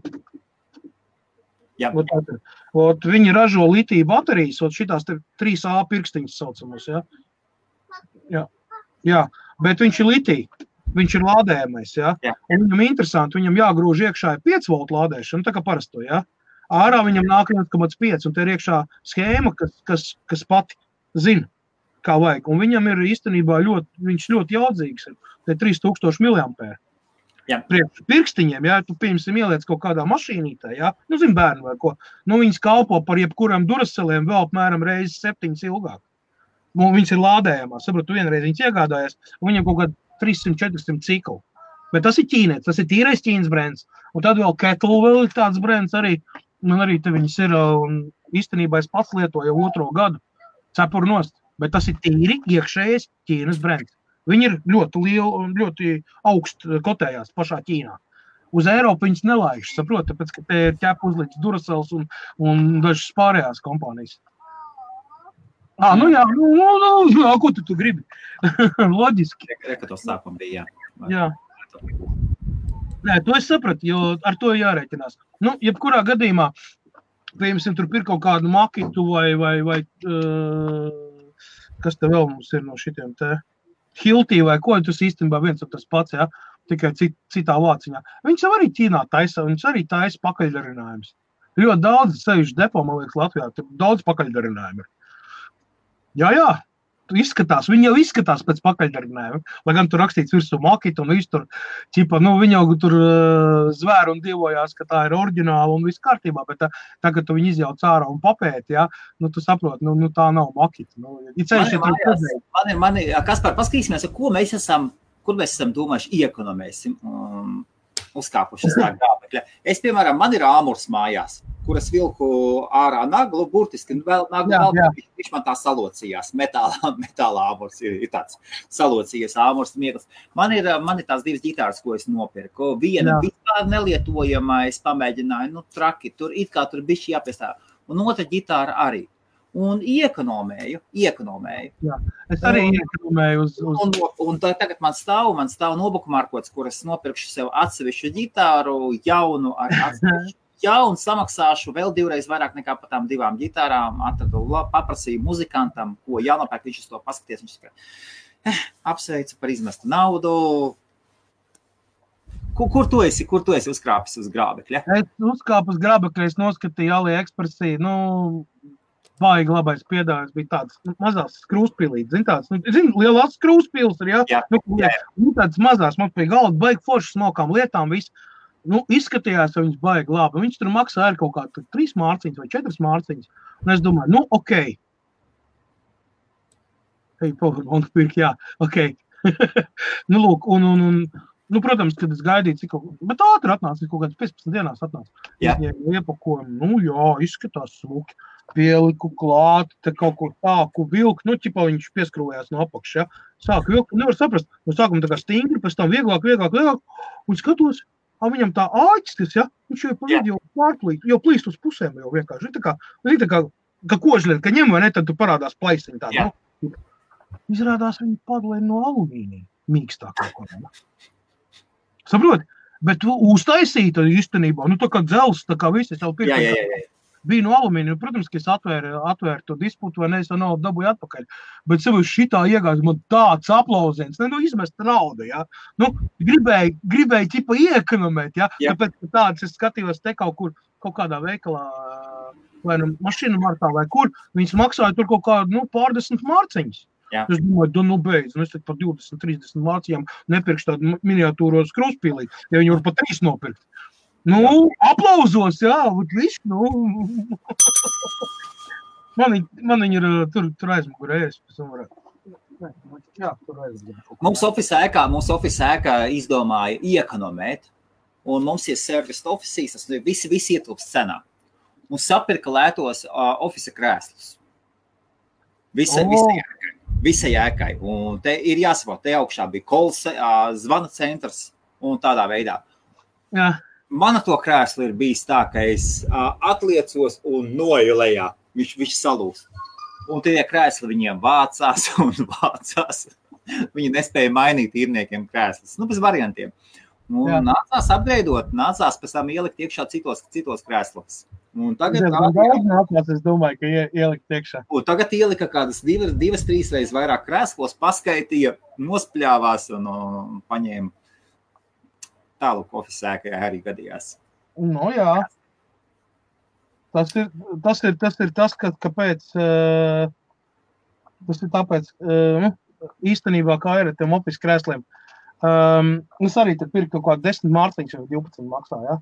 B: Jā. Viņi ražo litiju baterijas, šitās te 3A pirkstiņas saucamos, Jā, bet viņš ir litija, viņš ir lādējamais, un viņam interesanti, viņam jāgrūž iekšā 5 volt lādēšana, tā kā parasto, Ārā viņam nāk 1,5, un te ir iekšā schēma, kas pati zina, kā vajag, un viņam ir īstenībā viņš ļoti jaudzīgs, te 3000 mAh. Priekš pirkstiņiem, tu pieņemsim ieliec kaut kādā mašīnītē, zin bērnu vai ko, viņas kalpo par jebkuram duraceliem vēl apmēram reizes 7 ilgāk. Viņas ir lādējamās, sapratu, vienreiz viņas iegādājās, un viņam kaut kādā 300-400 ciklu. Bet tas ir ķīnietis, tas ir tīrais Ķīnas brands. Un tad vēl Kettle vēl ir tāds brands arī, un arī te viņas ir, un īstenībā es pats lietoju 2. gadu, cepuru nost, bet tas ir tīri iekšējais Ķīnas brands. Viņi ir ļoti lieli un ļoti augst kotējās pašā Ķīnā. Uz Eiropu viņas nelaiž, saprot, tāpēc, ka te ir ķep uzliks Duracell un dažas pārējās kompānijas. Ko tu gribi? Loģiski.
A: Ka to sākumu bija,
B: jā. Nē, to es sapratu, jo ar to jārēķinās. Jebkurā gadījumā piemēram, tur pirkt kaut kādu makitu vai kas te vēl mums ir no šitiem te Hiltī vai ko, tas īstenībā viens un tas pats, ja, tikai citā vāciņā. Viņš jau arī Ķīnā taisa, viņš arī taisa pakaļdarinājumus. Ļoti daudz sevišķi depo, man liekas, Latvijā, daudz pakaļdarinājumu ir. Jā. Izskatās, viņi jau izskatās pēc pakaļdarinājuma, lai gan tur rakstīts virsū makita un viss tur, ķipa, viņi jau tur zvēru un dievojās, ka tā ir oriģināla un viss kārtībā, bet tagad tu viņi izjauc ārā un papēti, ja, tu saproti, tā nav makita.
A: Kaspar, paskatīsimies, kur mēs esam domājuši iekonomēsim uzkāpuši tā grābekļa. Es, piemēram, man ir āmurs mājās, kuras vilku ārā naglu, burtiski vēl naglu, viņš man tā salocījās. Metāla āmurs ir tāds salocījies āmurs miegls. Man ir tās divas ģitāras, ko es nopirku. Viena vispār nelietojama, es pamēģināju, traki, tur bišķi jāpiestāv. Un otra ģitāra arī. Un iekonomēju.
B: Jā, es arī iekonomēju uz...
A: Un tagad man stāv nobukumārkots, kuras nopirkšu sev atsevišķu ģitāru, jaunu ar atsevišķu. Un samaksāšu vēl 2 reizes vairāk nekā par tām 2 ģitārām. Paprasīju muzikantam, ko jānopērk, viņš uz to paskaties. Viņš saka, apsveicu par izmestu naudu. Kur tu esi uzkrāpis uz grābekļa?
B: Es uzkāpu uz grābekļa, es noskatīju AliExpressī, baigi labais piedāvājums bija tāds mazās skrūspilītes, lielās skrūspils ir, jā? Tādas mazās, man pie galda baigi foršas smokām lietām, viss. Izskatījās, ka viņš baigi labi. Viņš tur maksāja kaut kā 3 mārciņas vai 4 mārciņas. Un es domāju, ok. Powerbank pirk, jā, ok. Lūk, protams, kad es gaidīju, bet ātri atnāca, kaut kādas 15 dienās atnāca. Iepakojumu, izskatās smuki. Pieliku klāt, te kaut ko tāku vilku, ķipā viņš pieskrūvējās no apakšas, ja. Sāku vilku, nevar saprast, no sākuma tā kā stingri, pēc tam vieglāk, un skatos, viņam tā āķis, ja, viņš jau pa vidu jau pārplīt, jau plīst uz pusēm jau vienkārši, tā kā kožļien, ka ņem vai ne, tad tu parādās plaisiņi tādu, Izrādās viņi padalēja no alumīnija, mīkstāk kaut ko, Saproti, bet uztaisīta īstenībā, tā kā dzels, tā kā visi jau pirkt. Bija no alumīnija, protams, ka es atvēru to disputu, vai ne, es to naudu dabūju atpakaļ. Bet sev šitā iegājas, man tāds aplauziens, izmesta nauda, ja. Gribēju ķipa iekonomēt, ja. Tāpēc tāds es skatījos te kaut kādā veikalā, vai mašīnu martā vai kur, viņas maksāja tur kaut kādu, pārdesmit mārciņas. Es domāju, beidz, es tad par 20-30 mārciņām nepirkšu tādu miniatūros krūspīlī, ja viņi var pa 3 nopirkt. Aplauzos, jā, viss, Man viņi ir tur aizmugurējies, pēc tam varētu. Jā, tur aizmugurējies.
A: Mums office ēkā izdomāja iekonomēt, un mums ir service offices, tas visi ietilpst cenā. Un sapirka lētos office krēslus. Visai ēkai. Un te ir jāsaprot, te augšā bija kols, zvana centrs un tādā veidā.
B: Jā.
A: Mana to krēslu ir bijis tā, ka es atliecos un noju lejā. Viņš salūst. Un tie krēsli viņiem vācās. Viņi nespēja mainīt īrniekiem krēslus. Bez variantiem. Un nācās apgreidot, nācās pēc tam ielikt iekšā citos krēslos. Un tagad
B: es domāju, ka ielikt iekšā.
A: Un tagad ielika kādas 2-3 reizes vairāk krēslos, paskaitīja, nospļāvās un paņēma. Tālāk office ēkai arī gadījās.
B: Jā. Tas ir tas, kāpēc, tas ir tāpēc, īstenībā kā ir ar tiem office krēsliem. Es arī te pirku kaut kādu 10 mārciņas vai 12 maksā, ja?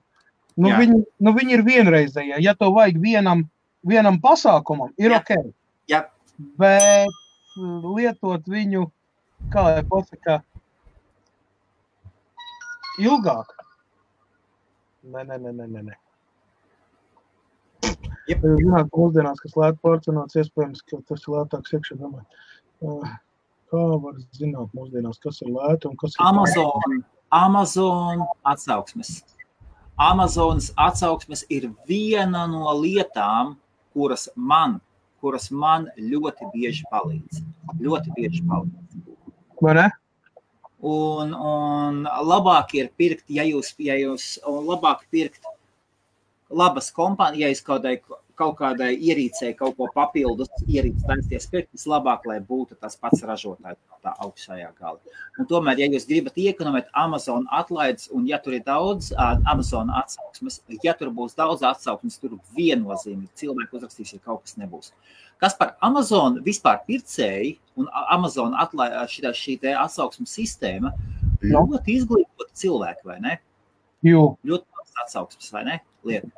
B: Viņi ir vienreizējie. Ja to vajag vienam pasākumam, ir ok.
A: Jā.
B: Bet lietot viņu, kā lai pasaka, ilgāk. Nē. Zināt, mūsdienās, kas lēt porcionāts, iespējams, ka tas ir lētāks iekšā, domāju. Kā var zināt mūsdienās, kas ir lēta un kas ir...
A: Amazon atsauksmes. Amazonas atsauksmes ir viena no lietām, kuras man ļoti bieži palīdz.
B: Vai ne?
A: Un labāk ir pirkt, ja jūs labāk pirkt labas kompānijas, ja jūs kaut kādai ierīcei kaut ko papildus ierīces taisties pirkt, vislabāk, lai būtu tas pats ražotājs tā augšējā gala. Un tomēr, ja jūs gribat iekonomēt Amazon atlaides, un ja tur ir daudz Amazon atsauksmes, ja tur būs daudz atsauksmes, tur viennozīmīgi cilvēki uzrakstīs, ja kaut kas nebūs. Kas par Amazon vispār pircēji un Amazon šī te atsauksmes sistēma ļoti izglītota cilvēki, vai ne?
B: Jo.
A: Ļoti atsauksmes, vai ne? Lieta.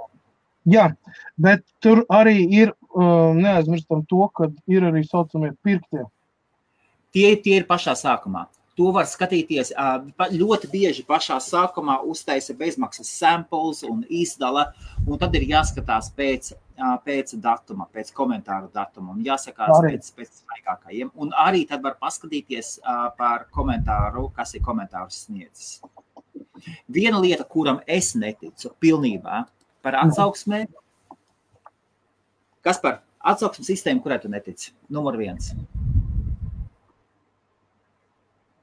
B: Jā, bet tur arī ir, neaizmirstam to, ka ir arī saucamie pirktie.
A: Tie ir pašā sākumā. To var skatīties ļoti bieži pašā sākumā uztaisa bezmaksas samples un izdala, un tad ir jāskatās pēc datuma, pēc komentāru datuma, un jāsakās pēc svaigākajiem. Un arī tad var paskatīties par komentāru, kas ir komentārus sniedzis. Viena lieta, kuram es neticu pilnībā, par atsauksmē. Kas par atsauksmes sistēmu, kurai tu netici? Numur 1.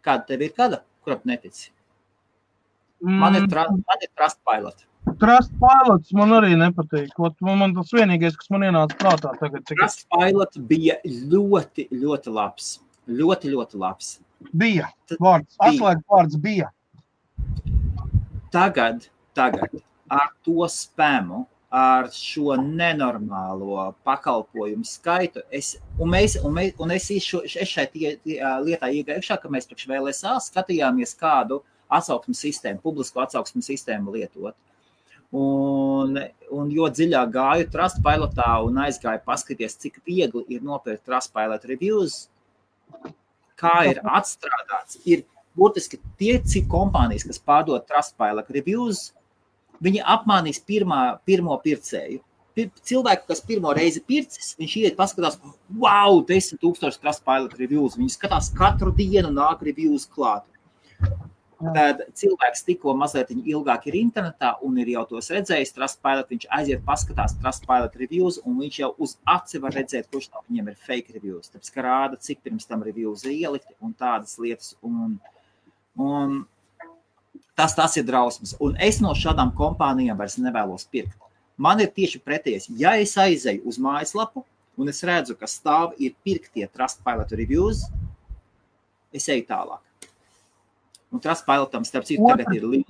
A: Kāda tev ir kāda, kurai tu netici? Man ir Trustpilot.
B: Trustpilot man arī nepatīk. Man tas vienīgais, kas man ienāca prātā tagad.
A: Trustpilot bija ļoti, ļoti labs. Ļoti, ļoti labs.
B: Bija. Atslēgas vārds bija.
A: Tagad ar to spamu, ar šo nenormālo pakalpojumu skaitu, es šai lietā iegājušā, ka mēs priekš VLSA skatījāmies kādu atsauksmes sistēmu, publisko atsauksmes sistēmu lietot. Un jo dziļāk gāju Trustpilotā un aizgāju paskaties, cik viegli ir nopirkt Trustpilot reviews, kā ir atstrādāts, ir būtiski tie cik kompānijas, kas pārdod Trustpilot reviews, viņi apmānīs pirmo pircēju. Cilvēku, kas pirmo reizi pircis, viņš iet paskatās, wow, 10,000 Trustpilot reviews. Viņi skatās katru dienu nāk reviews klāt. Tad cilvēks tikko mazliet ilgāk ir internetā un ir jau tos redzējis Trustpilot, viņš aiziet paskatās Trustpilot reviews un viņš jau uz aci var redzēt, kurš no viņiem ir fake reviews. Tāpēc, ka rāda, cik pirms tam reviews ir ielikti un tādas lietas. Un tas ir drausmas. Un es no šādām kompānijām vairs nevēlos pirkt. Man ir tieši pretējais. Ja es aizeju uz mājaslapu un es redzu, ka stāv ir pirktie Trustpilot reviews, es eju tālāk. Un Trustpilotam, starp citu, tagad ir liels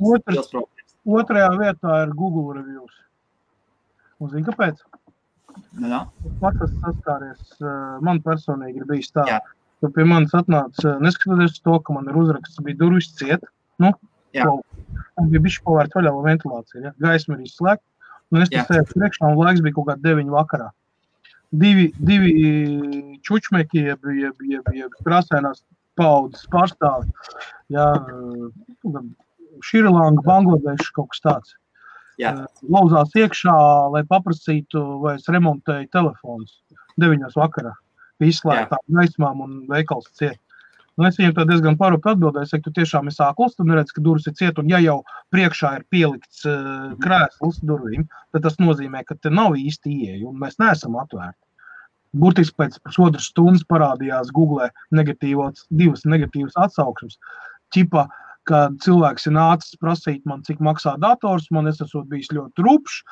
A: problēmas.
B: Otrajā vietā ir Google reviews. Un zini, kāpēc?
A: Jā.
B: Pats esmu saskāries, man personīgi ir bijis tā. Jā. Ka pie manis atnāca, neskatoties to, ka man ir uzraksts, bija durvis ciet, un bija bišķi pavērt vaļā ventilācija, ja? Gaisma ir izslēgta, un es sēju priekšā, un laiks bija kaut kā 9 vakarā. Divi čučmeki, jeb krāsainās paudzes pārstāvi, Šrilanka, Bangladeša, kaut kas tāds. Lauzās iekšā, lai paprasītu, vai es remontēju telefonus 9 vakarā, izslēgtām gaismām un veikals ciet. Un es viņam tā diezgan parūpi atbildēju, es saku, tu tiešām esi ākls, tu neredz, ka durvis ir ciet, un ja jau priekšā ir pielikts krēsls durvīm, tad tas nozīmē, ka te nav īsti ieeja, un mēs neesam atvērti. Burtiski pēc pusotras stundas parādījās Google divas negatīvas atsauksmes. Ķipa, kad cilvēks ir nācis prasīt man, cik maksā dators, man es esot bijis ļoti rupšs,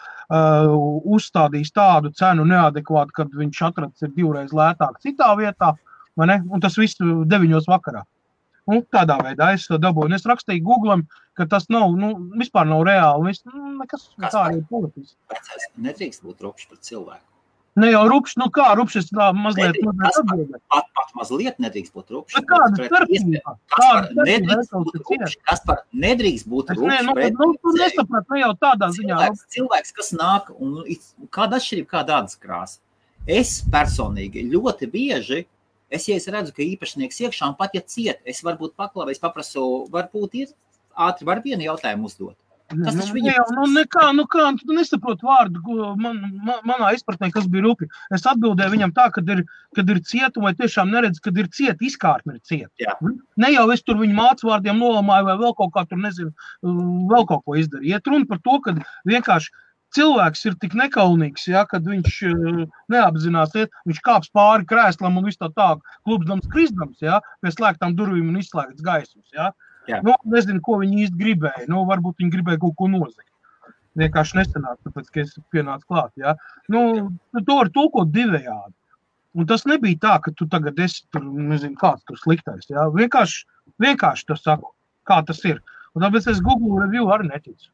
B: uzstādījis tādu cenu neadekvātu, kad viņš atrads ir 2 reizes lētāk citā vietā, vai ne? Un tas viss 9 vakarā. Un tādā veidā es to dabūju. Un es rakstīju Googlam, ka tas nav, vispār nav reāli. Nekas tā ir politiski.
A: Vecais, nedrīkst būt rupšs pret cilvēku.
B: Ne jau rupšs, kā rupšs, es tā mazliet atbildēju.
A: Pat mazliet nedrīkst būt rupšs.
B: Kāda starpība?
A: Kaspar, nedrīkst būt rupšs pret
B: tu nesaprat, ne jau tādā ziņā.
A: Cilvēks, kas nāk, un kāda atšķirība, kāda ādas krāsa. Es personīgi ļoti bieži, ja es redzu, ka īpašnieks iekšā, un pat ja ciet, es varbūt paklavu, es paprasu, varbūt ir ātri, var vienu jautājumu uzdot. Tas taču viņa...
B: Tu nesaprot vārdu, manā izpratnē, kas bija rupi. Es atbildēju viņam tā, kad ir cieta, vai tiešām neredz, kad ir cieta, izkārtne ir cieta.
A: Jā.
B: Ne jau es tur viņu mācu vārdiem nolamāju, vai vēl kaut kā tur, nezinu, vēl kaut ko izdarīju. Iet runa par to, ka vienkārši cilvēks ir tik nekaunīgs, kad viņš neapzinās, viņš kāps pāri krēslam un viss tā klubsdams, krisdams, pie slēgtām durvīm un izslēgts gaismas,
A: Jā.
B: Nezinu, ko viņi īsti gribēja. Varbūt viņi gribēja kaut ko nozagt. vienkārši nesanāk, tāpēc, ka es pienācu klāt, jā. Nu, to var tulkot divējādi. Un tas nebija tā, ka tu tagad esi tur, nezinu, kāds tur sliktais, jā. Vienkārši to saku, kā tas ir. Un tāpēc es Google review arī neticu.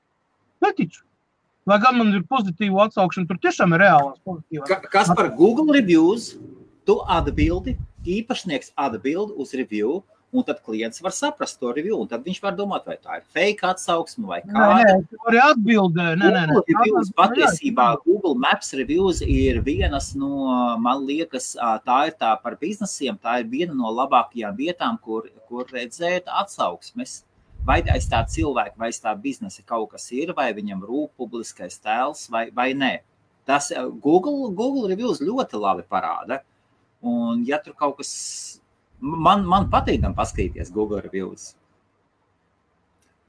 B: Lai gan man ir pozitīva atsaukšana, tur tiešām ir reālās pozitīvās.
A: Kas par Google reviews, tu atbildi, īpašnieks atbildi uz review, un tad klients var saprast to review, un tad viņš var domāt, vai tā ir fake atsauksme vai kāda.
B: Nē, tu vari atbildēt.
A: Google reviews patiesībā, Google Maps reviews ir vienas no, man liekas, tā ir tā par biznesiem, tā ir viena no labākajām vietām, kur redzēt atsauksmes. Vai aiz tā cilvēka, vai aiz tā biznesa kaut kas ir, vai viņam rūp publiskais tēls, vai nē. Tas Google reviews ļoti labi parāda. Un ja tur kaut kas, man patīkam paskatīties Google reviews.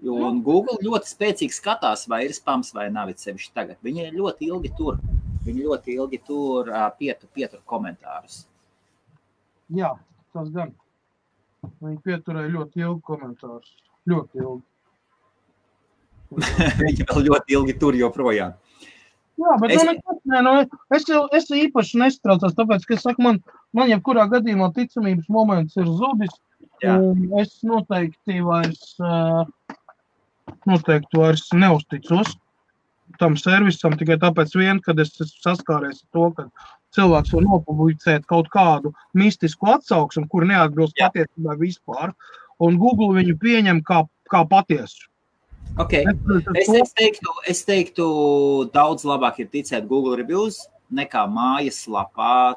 A: Un Google ļoti spēcīgi skatās, vai ir spams vai nav sevišķi tagad. Viņi ļoti ilgi tur pietur komentārus.
B: Jā, tas gan. Viņi pieturēja ļoti ilgi komentārus. Ļoti ilgi.
A: Viņi vēl ļoti ilgi tur joprojām.
B: Jā, bet es īpaši nestraucos, tāpēc, ka es saku, man jebkurā gadījumā ticamības moments ir zudis. Un es noteikti vairs neuzticos tam servisam, tikai tāpēc vien, kad es saskāries ar to, ka cilvēks var nopublicēt kaut kādu mistisku atsauksmu, kur neatbilst patiesībā vispār. Un Google viņu pieņem kā patiesu.
A: Okay. Es teiktu, daudz labāk ir ticēt Google reviews nekā mājaslapā.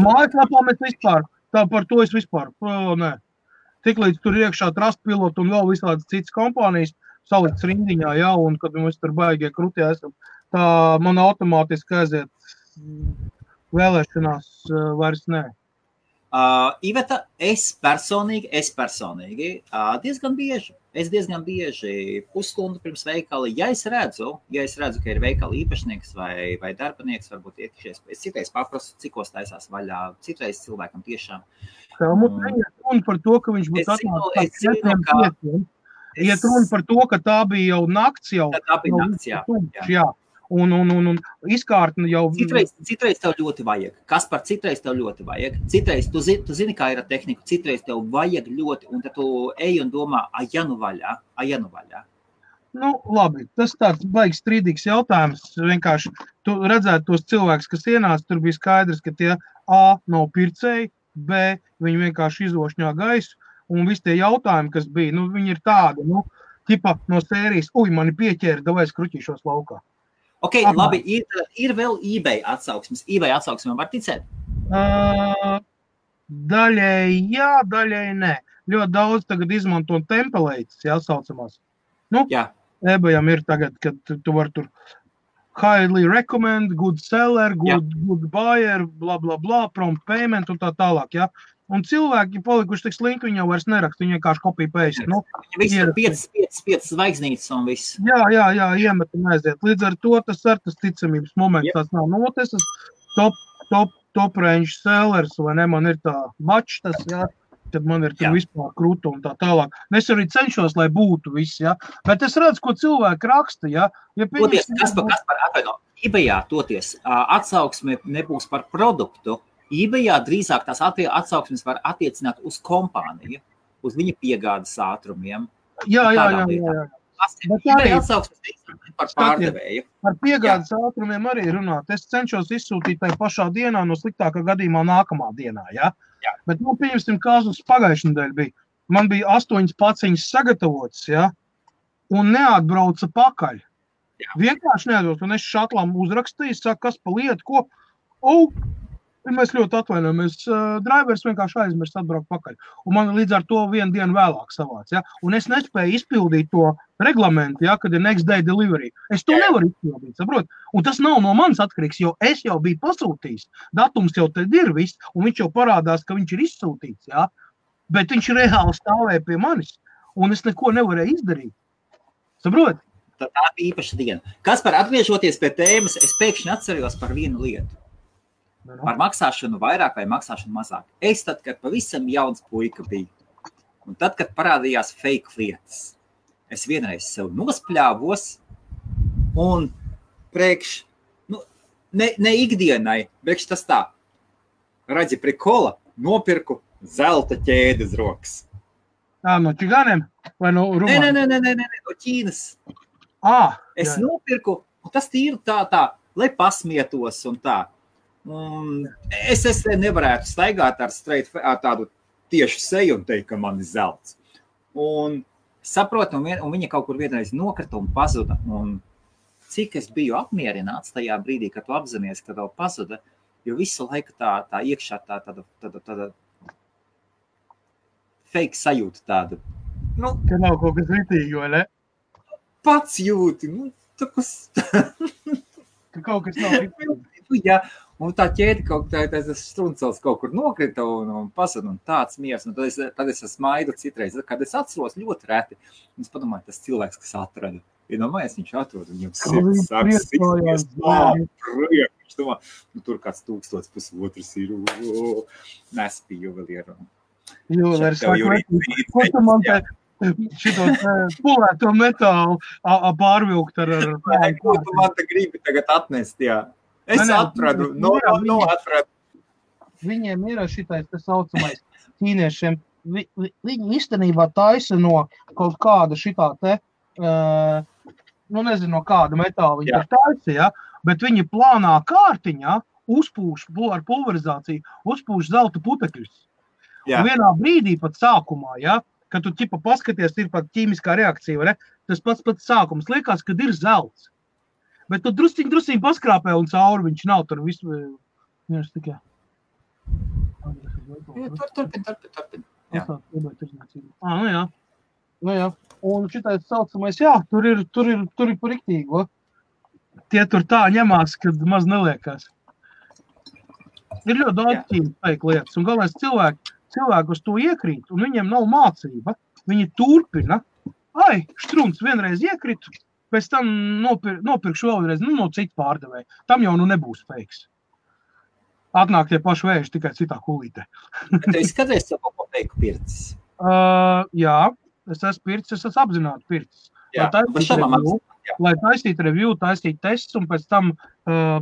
B: Mājaslapā mēs vispār, tā par to es vispār, nē. Tiklīdz tur iekšā Trustpilot un vēl visādas citas kompānijas salikts rindiņā, jā, un kad mēs tur baigie krutī esam, tā man automātiski aiziet vēlēšanās vairs nē.
A: Iveta, es personīgi diezgan bieži pusstundu pirms veikala, ja es redzu, ka ir veikala īpašnieks vai darbinieks, varbūt iekšies, es citreiz paprasu, cikos taisās vaļā, citreiz cilvēkam tiešām.
B: Mums neiet runa par to, ka viņš būtu atnācis. Iet runa par to, ka tā bija jau nakts jau.
A: Tā bija nakts, jā.
B: Un izkārtni jau...
A: Citreiz tev ļoti vajag. Kas par citreiz tev ļoti vajag? Citreiz, tu zini, kā ir ar tehniku, citreiz tev vajag ļoti, un tad tu ej un domā, ja nu vaļā.
B: Nu, labi, tas tāds baigs strīdīgs jautājums. Vienkārši tu redzētu tos cilvēkus, kas ienāca, tur bija skaidrs, ka tie A nav pircēji, B viņi vienkārši izošņā gaisu, un visi tie jautājumi, kas bija, nu, viņi ir tādi, nu, tipa no sērijas, mani pieķēra, davai es kruķīšos laukā.
A: Ok, labi, ir vēl eBay atsauksmes. eBay atsauksmēm var ticēt?
B: Daļēji jā, daļēji nē. Ļoti daudz tagad izmanto templates, jā, saucamās. Nu, eBayam ir tagad, kad tu var tur highly recommend, good seller, good buyer, bla, bla, bla, prompt payment un tā tālāk, jā. Un cilvēki palikuši tik slinki, viņi jau vairs neraksta, viņi vienkārši copy paste. Nu,
A: visi ir 5 zvaigznītes un viss.
B: Jā, iemet un aiziet. Līdz ar to tas ticamības moments tās nav. Nu, tas top range sellers, vai ne, man ir tā mačs tas, jā, tad man ir tur vispār krūta un tā tālāk. Es arī cenšos, lai būtu viss, jā. Bet es redzu, ko cilvēki raksta, jā.
A: Kas par atvaino? eBayā toties atsauksme nebūs par produktu. eBayā drīzāk tās atsauksmes var attiecināt uz kompāniju, uz viņa piegādes ātrumiem.
B: Jā.
A: eBay atsauksmes par pārdevēju.
B: Par piegādes ātrumiem arī runāt. Es cenšos izsūtīt tai pašā dienā, no sliktākā gadījumā nākamā dienā, jā? Bet, nu, pieņemsim, kāzus pagājušajā nedēļā bija. Man bija 8 paciņas sagatavotas, jā, un neatbrauca pakaļ. Vienkārši neatbrauca, un es šatlām uzrakstīju, saku, kas pa lietu, ko? Mēs ļoti atvainojamies. Drivers vienkārši aizmirst atbraukt pakaļ. Un man līdz ar to vienu dienu vēlāk savāc. Ja? Un es nespēju izpildīt to reglamentu, ja, kad ir next day delivery. Es to nevaru izpildīt, saprot? Un tas nav no manis atkarīgs, jo es jau biju pasūtījis. Datums jau tad ir viss, un viņš jau parādās, ka viņš ir izsūtīts. Ja? Bet viņš reāli stāvēja pie manis, un es neko nevarēju izdarīt. Saprot?
A: Tā bija īpaša diena. Kas par atgriežoties pie tēmas, es pēkšņi atceros par vienu lietu. Par maksāšanu vairāk vai maksāšanu mazāk. Es tad, kad pavisam jauns puika biju, un tad, kad parādījās fake lietas, es vienreiz sev nospļāvos, Un priekš, ne ikdienai, priekš tas tā, redzi prikola, nopirku zelta ķēdes rokas.
B: No čigāniem? Vai no Rumānijas?
A: Nē, no Ķīnas. Es nopirku, un tas tīri tā, lai pasmietos un tā. Es nevarētu staigāt ar tādu tiešu seju un teikt, ka man ir zelts. Un saprotu, un viņa kaut kur vienreiz nokrita un pazuda. Un cik es biju apmierināts tajā brīdī, kad tu apzinājies, ka tev pazuda, jo visu laiku tā iekšā tāda fake sajūta tāda.
B: Ka nav kaut kas ritīgi, vai ne?
A: Pats jūti, tā kas...
B: Ka kaut kas nav ritīgi.
A: Jā, un tā ķēde tas struncels kaut kur nokrita un pasada un tāds miers. Un tad es smaidu citreiz, kad es atceros ļoti reti. Un es padomāju, tas cilvēks, kas atrada. Iedomājies, viņš atrod un viņam sirds sāks siksties. Viņš domā, tur kāds 1,500 ir. Nespīju vēl ir.
B: Juvelērs saka, ko tu man te šito pulēto metālu pārvilkt ar...
A: Ko tu man te gribi tagad atnest, jā? Es atradu, atradu.
B: Viņiem ir šitais te saucamais ķīniešiem. Viņi īstenībā taisa no kaut kāda šitā te, nezinu, no kāda metāla viņi taisa, ja? Bet viņi plānā kārtiņā uzpūš ar pulverizāciju, uzpūš zelta putekļus. Un vienā brīdī pat sākumā, ja, kad tu ķipa paskaties, ir pat ķīmiskā reakcija, vai ne? Tas pats sākums liekas, kad ir zelts. Bet tu drusciņ paskrāpē un cauri viņš nav tur visu. Viņš tikai.
A: Turpin.
B: Jā. Un šitais saucamais, tur ir par riktīgo. Tie tur tā ņemās, kad maz neliekās. Ir ļoti daudz ķīmiskā lietas. Un galvenais cilvēki uz to iekrīt, un viņiem nav mācība. Viņi turpina. Štruns vienreiz iekritu, pēc tam nopirkšu vēlreiz, no citu pārdevēju. Tam jau nebūs feiks. Atnāk tie paši vēži, tikai citā kulītē.
A: Tu izskaties savu kaut ko feiku pircis?
B: Jā, es esmu pircis, es esmu apzināti pircis. Lai taistītu review, taistītu tests un pēc tam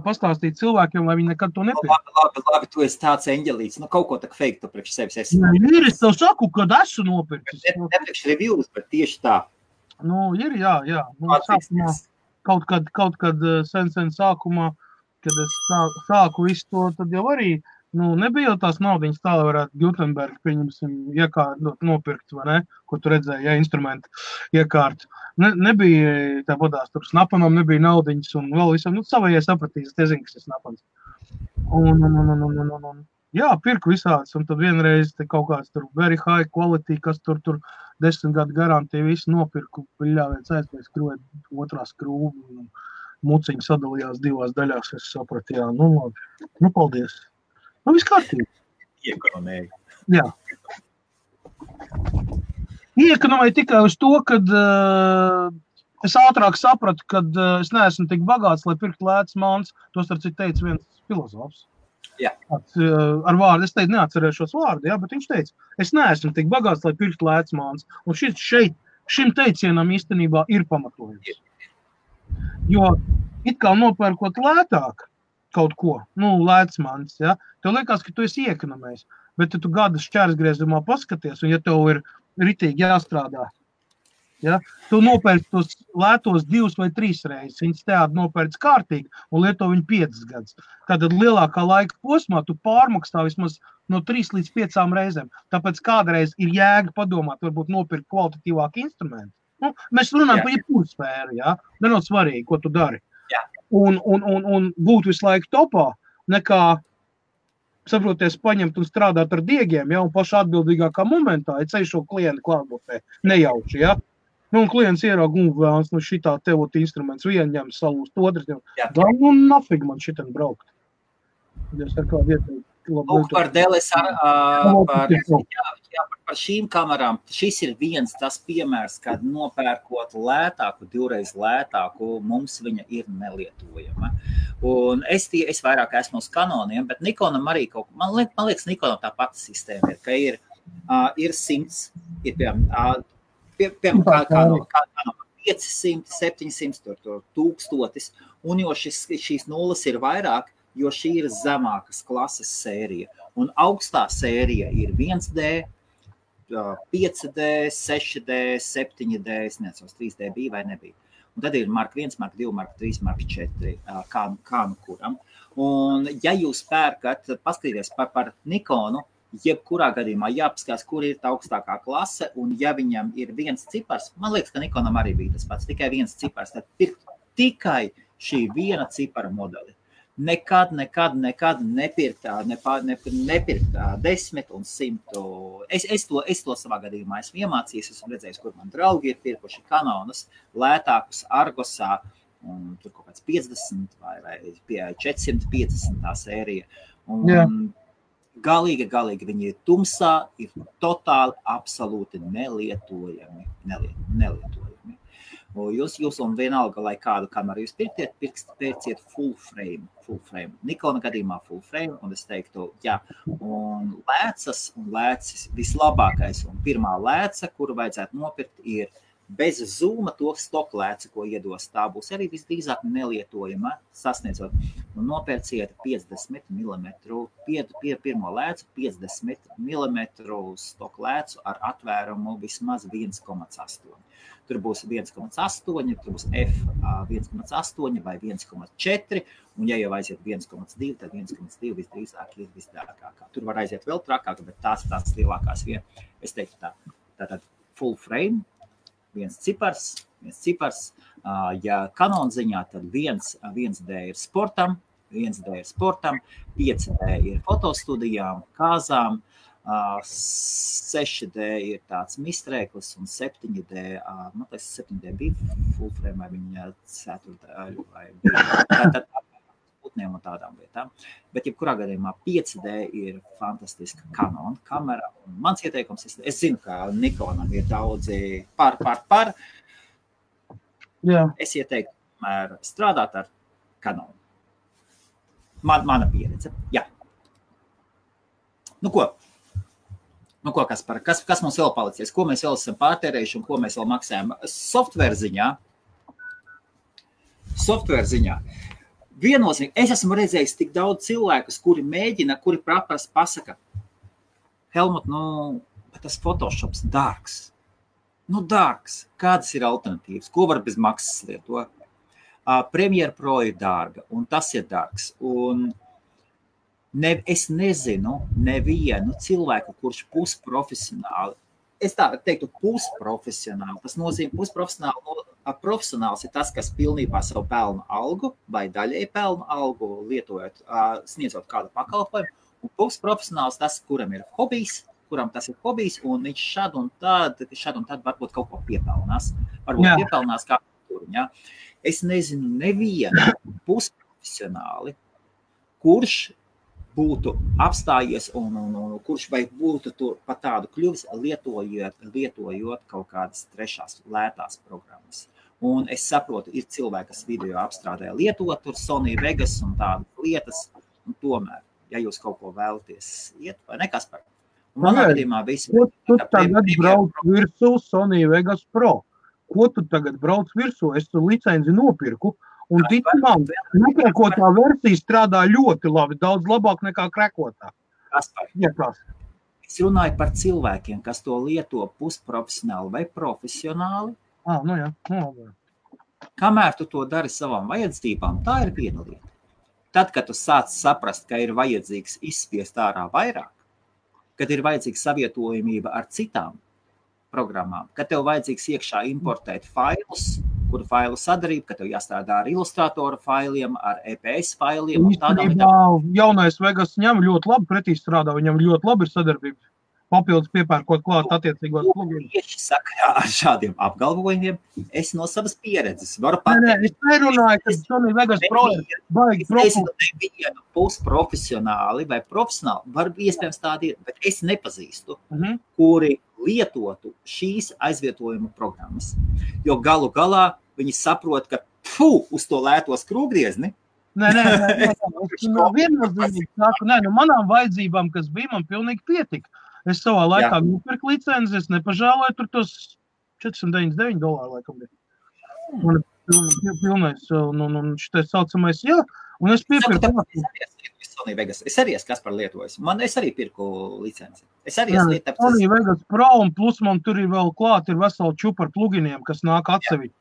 B: pastāstītu cilvēkiem, lai viņi nekad to nepirkt.
A: Labi, tu esi tāds eņģelīts. Kaut ko tak fake tu priekš sevis esi.
B: Ir, es tev saku, kad esmu nopircis.
A: Ne priekš reviews, bet tieši tā.
B: Ir, jā. Sākumā, kaut kad sen sākumā, kad es sāku visu to, tad jau arī nebija jau tās naudiņas tā, lai varētu Gutenberg, pieņemsim, nopirkt, vai ne, ko tu redzēji, instrumenti iekārt. Nebija tā podās, tur snapanam nebija naudiņas un vēl visam, savējai sapratīs, es zinu, kas ir snapans. Jā, pirku visāds, un tad vienreiz te kaut kāds tur very high quality, kas tur 10 gadu garantija visu nopirku, piļāviec aizpēc skrūvēt otrā skrūva, un muciņi sadalījās 2 daļās, es sapratu, jā, labi, paldies. Viss kārtīgi.
A: Iekonomēju.
B: Jā. Iekonomēju tikai uz to, kad es ātrāk sapratu, kad es neesmu tik bagāts, lai pirkt lētas mans. Tos ar citu teica viens filozofs.
A: Jā.
B: Ar vārdu, es teicu, neatcerēšos vārdu, jā, bet viņš teica, es neesmu tik bagāts, lai pirkt lētas mans. Un šim teicienam īstenībā ir pamatojums. Jo it kā nopērkot lētāk kaut ko, lēts mans, ja, tev liekas, ka tu esi iekonomējis, bet tu gada šķērsgriezumā paskaties, un ja tev ir ritīgi jāstrādā, ja, tu nopērci tos lētos 2 vai 3 reizes, viņas teādi nopērci kārtīgi un lieto viņu 5 gadus. Tātad lielākā laika posmā tu pārmaksā vismaz no 3 līdz 5 reizēm. Tāpēc kādreiz ir jēga padomāt, varbūt nopirkt kvalitatīvāku instrumentu. Mēs runājam par jebkuru sfēru, ja, nenot svarīgi, ko tu dari. Un būt visu laiku topā, nekā, saproties, paņemt un strādāt ar diegiem, ja, un paši atbildīgākā momentā, ja ceļ šo klientu klātbūtnē, nejauši, ja. Un klients ieraug, vēlams, šitā tevot instruments, vienu ņem salūst, otrs ņem. Nafig man šitien braukt. Es ar kādu ieteikt.
A: Par DLSR, par šīm kamerām, šis ir viens tas piemērs, kad nopērkot lētāku, 2 reiz lētāku, mums viņa ir nelietojama. Un es vairāk esmu uz Canoniem, bet Nikonam arī man liekas, Nikonam tā pati sistēma ir, ka ir 100, ir piemēram, Canon 500, 700, 1000, un jo šīs nulles ir vairāk, jo šī ir zemākas klases sērija. Un augstā sērija ir 1D, 5D, 6D, 7D, es nezinu, 3D bija vai nebija. Un tad ir marka 1, marka 2, marka 3, marka 4, kā nu kuram. Un ja jūs pērkat, paskatīties par Nikonu, jebkurā gadījumā jāpaskatās, kur ir tā augstākā klase, un ja viņam ir viens cipars, man liekas, ka Nikonam arī bija tas pats, tikai viens cipars, tad pirkt tikai šī viena cipara modeli. Nekad nepirkt 10 un 100. Es to savā gadījumā esmu iemācījies, esmu redzējis, kur man draugi ir pirkuši Canonus lētākus Argosā, un tur kaut kāds 50 vai 450 tā sērija. Un galīgi viņi ir tumsā, ir totāli, absolūti nelietojami. Jūs un vienalga, lai kādu kameru jūs pērciet full frame. Nikona gadījumā full frame, un es teiktu, jā. Un lēcis vislabākais, un pirmā lēca, kuru vajadzētu nopirkt, ir bez zūma to stoku lēci, ko iedos. Tā būs arī visdrīzāk nelietojama, sasniedzot. Un nopērciet 50 mm, pirmo lēcu 50 mm stoku lēcu ar atvērumu vismaz 1,8. Tur būs 1,8, tur būs F 1,8 vai 1,4, un ja jau aiziet 1,2, tad 1,2 visdrīzāk ir visdārgākā. Tur var aiziet vēl trakāk, bet tās lielākās vietas. Es teiktu tā. Tātad full frame, viens cipars. Ja Canon ziņā, tad 1D ir sportam, 5D ir fotostudijām, kāzām, 6D ir tāds mistrēklis un 7D, man liekas, 7D bija full frame vai viņa 4D vai bija putniem un tādām lietām. Bet jebkurā gadījumā 5D ir fantastiska Canon kamera. Un mans ieteikums, es zinu, ka Nikonam ir daudzi par.
B: Jā.
A: Es ieteiktu strādāt ar Canon. Mana pieredze, jā. Nu ko, kas mums vēl palicies? Ko mēs vēl esam pārtērējuši un ko mēs vēl maksājam? Software ziņā. Viennozīmīgi, es esmu redzējis tik daudz cilvēkus, kuri pasaka, Helmut, tas Photoshops dārgs. Dārgs. Kādas ir alternatīvas? Ko var bez maksas lietot? Premiere Pro ir dārga, un tas ir dārgs. Un es nezinu nevienu cilvēku, kurš pusprofesionāli, es tā teiktu pusprofesionāli, tas nozīmē profesionāls ir tas, kas pilnībā savu pelnu algu vai daļēji pelnu algu lietojot, sniedzot kādu pakalpojumu, un pusprofesionāls tas, kuram tas ir hobijs, un viņš šad un tad varbūt kaut ko piepelnās. Piepelnās kā tur, ja? Es nezinu nevienu pusprofesionāli, kurš būtu apstājies un kurš vai būtu pat tādu kļuvis, lietojot kaut kādas trešās lētās programmas. Un es saprotu, ir cilvēki, kas video apstrādē lietot, tur Sony Vegas un tādas lietas, un tomēr, ja jūs kaut ko vēlaties iet, vai nekas par. Manā gadījumā visi...
B: Ko tu tagad brauc virsū Sony Vegas Pro? Ko tu tagad brauc virsū? Es tu licenci nopirku. Un ticamām, nekrekotā versija strādā ļoti labi, daudz labāk nekā krekotā.
A: Es runāju par cilvēkiem, kas to lieto pusprofesionāli vai profesionāli.
B: Jā.
A: Kamēr tu to dari savām vajadzībām, tā ir viena lieta. Tad, kad tu sāc saprast, ka ir vajadzīgs izspiest ārā vairāk, kad ir vajadzīga savietojamība ar citām programmām, kad tev vajadzīgs iekšā importēt failus, kuru failu sadarību, ka tev jāstrādā ar ilustrātora failiem, ar EPS failiem.
B: Jaunais Vegas ņem ļoti labi pretī strādā, viņam ļoti labi ir sadarbība. Papildus piepērkot klāt attiecīgos plugins.
A: Tieši sakarā ar šādiem apgalvojumiem es no savas pieredzes varu
B: pateikt. Es nerunāju, ka Sony Vegas Pro baigi
A: nevienu pusprofesionāli vai profesionāli, var iespējams tādi ir, bet es nepazīstu, kuri lietotu šīs aizvietojuma programmas. Jo galu galā viņi saprot, ka uz to lēto skrūvgriezni.
B: Nē, viennozīmīgi saku, manām vajadzībām, kas bija, man pilnīgi pietika. Es savā laikā nopirku licenci, es nepažāloju tur tos $499 laikam bija. Man ir pilnais, un šitais saucamais, jā, un es piepirku.
A: Es arī esmu kas par lietojas. Es arī pirku licenci. Es arī esmu lietu.
B: Sony Vegas Pro, un plus man tur ir vēl klāt, ir veseli čupa ar pluginiem, kas nāk atsevišķi.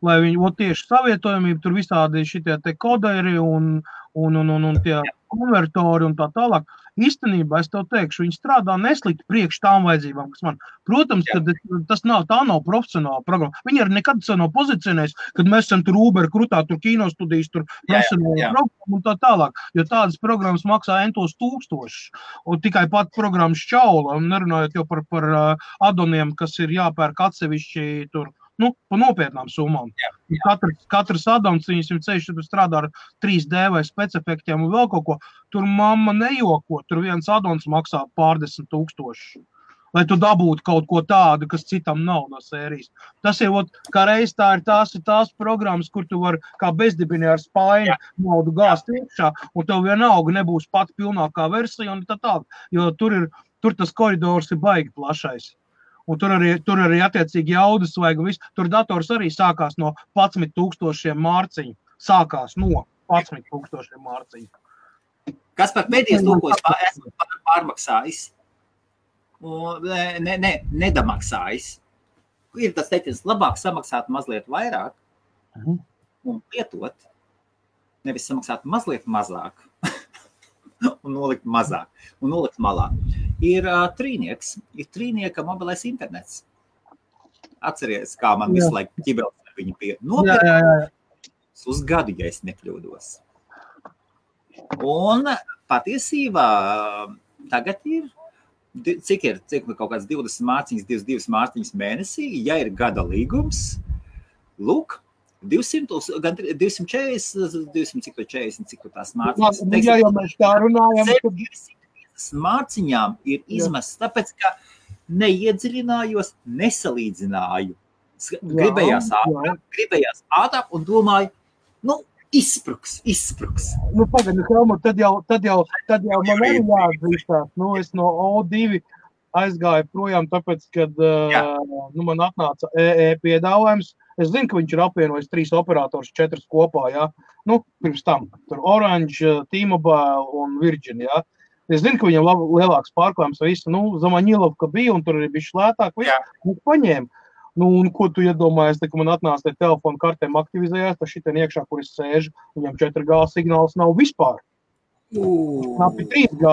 B: Lai viņi tieši savietojamību, tur visādi šitie te koderi un tie konvertori un tā tālāk. Īstenībā es tev teikšu, viņi strādā neslikti priekš tām vajadzībām, kas man. Protams, ka tā nav profesionāla programma. Viņi arī nekad nav pozicionējis, kad mēs esam tur Uber krutā, tur kinostudijas, tur profesionāla programma un tā tālāk. Jo tādas programmas maksā entos tūkstošus. Un tikai pat programmas šķaula, un nerunājot jau par adoniem, kas ir jāpērk atsevišķi tur. Pa nopietnām summām. Katrs adons, viņam ceļš strādā ar 3D vai specefektiem un vēl kaut ko. Tur mamma nejoko, tur viens adons maksā pārdesmit tūkstoši. Lai tu dabūtu kaut ko tādu, kas citam nav no sērijas. Tas ir, kā reiz tās programmas, kur tu vari kā bezdibini ar spaini naudu gāzt iekšā, un tev vienalga nebūs pat pilnākā versija un tā tālāk. Jo tur tas koridors ir baigi plašais. Un tur arī attiecīgi jaudas vajag visu. Tur dators arī sākās no 11,000 mārciņu. Sākās no 11,000 mārciņu.
A: Kas par pēdējais to, ko es esmu pārmaksājis? Nedamaksājis. Ir tas teikums, labāk samaksāt mazliet vairāk un lietot, nevis samaksāt mazliet mazāk un nolikt mazāk un nolikt malā. Ir trīnieka mobilais internets. Atceries, kā man visu laiku ķibels ar viņu nopirkt uz gadu, ja es nekļūdos. Un patiesībā tagad ir, cik kaut kāds 20 mārciņas, 22 mārciņas mēnesī, ja ir gada līgums, lūk, 200, gan 240, 240, cik tās mārciņas.
B: Jā, jau mēs tā runājam.
A: Mārciņām ir izmests, tāpēc, ka neiedziļinājos, nesalīdzināju. Gribējās ātrāk un domāju, izspruks.
B: Pagad, Helmut, tad jau man arī jāatzīstās. Es no O2 aizgāju projām, tāpēc, kad man atnāca piedāvājums. Es zinu, ka viņš ir apvienojis 3 operators, 4 kopā, pirms tam. Tur Orange, T-Mobile un Virgin, Es zinu, ka viņam lielāks pārklājums visu, Zamaņilovka bija, un tur arī bija šlētāk, visu paņēma. Un ko tu iedomājies, ka man atnāca telefonu kartēm aktivizējās, tad šitien iekšā, kur es sēžu, viņam 4G signāls nav vispār. Knapi 3G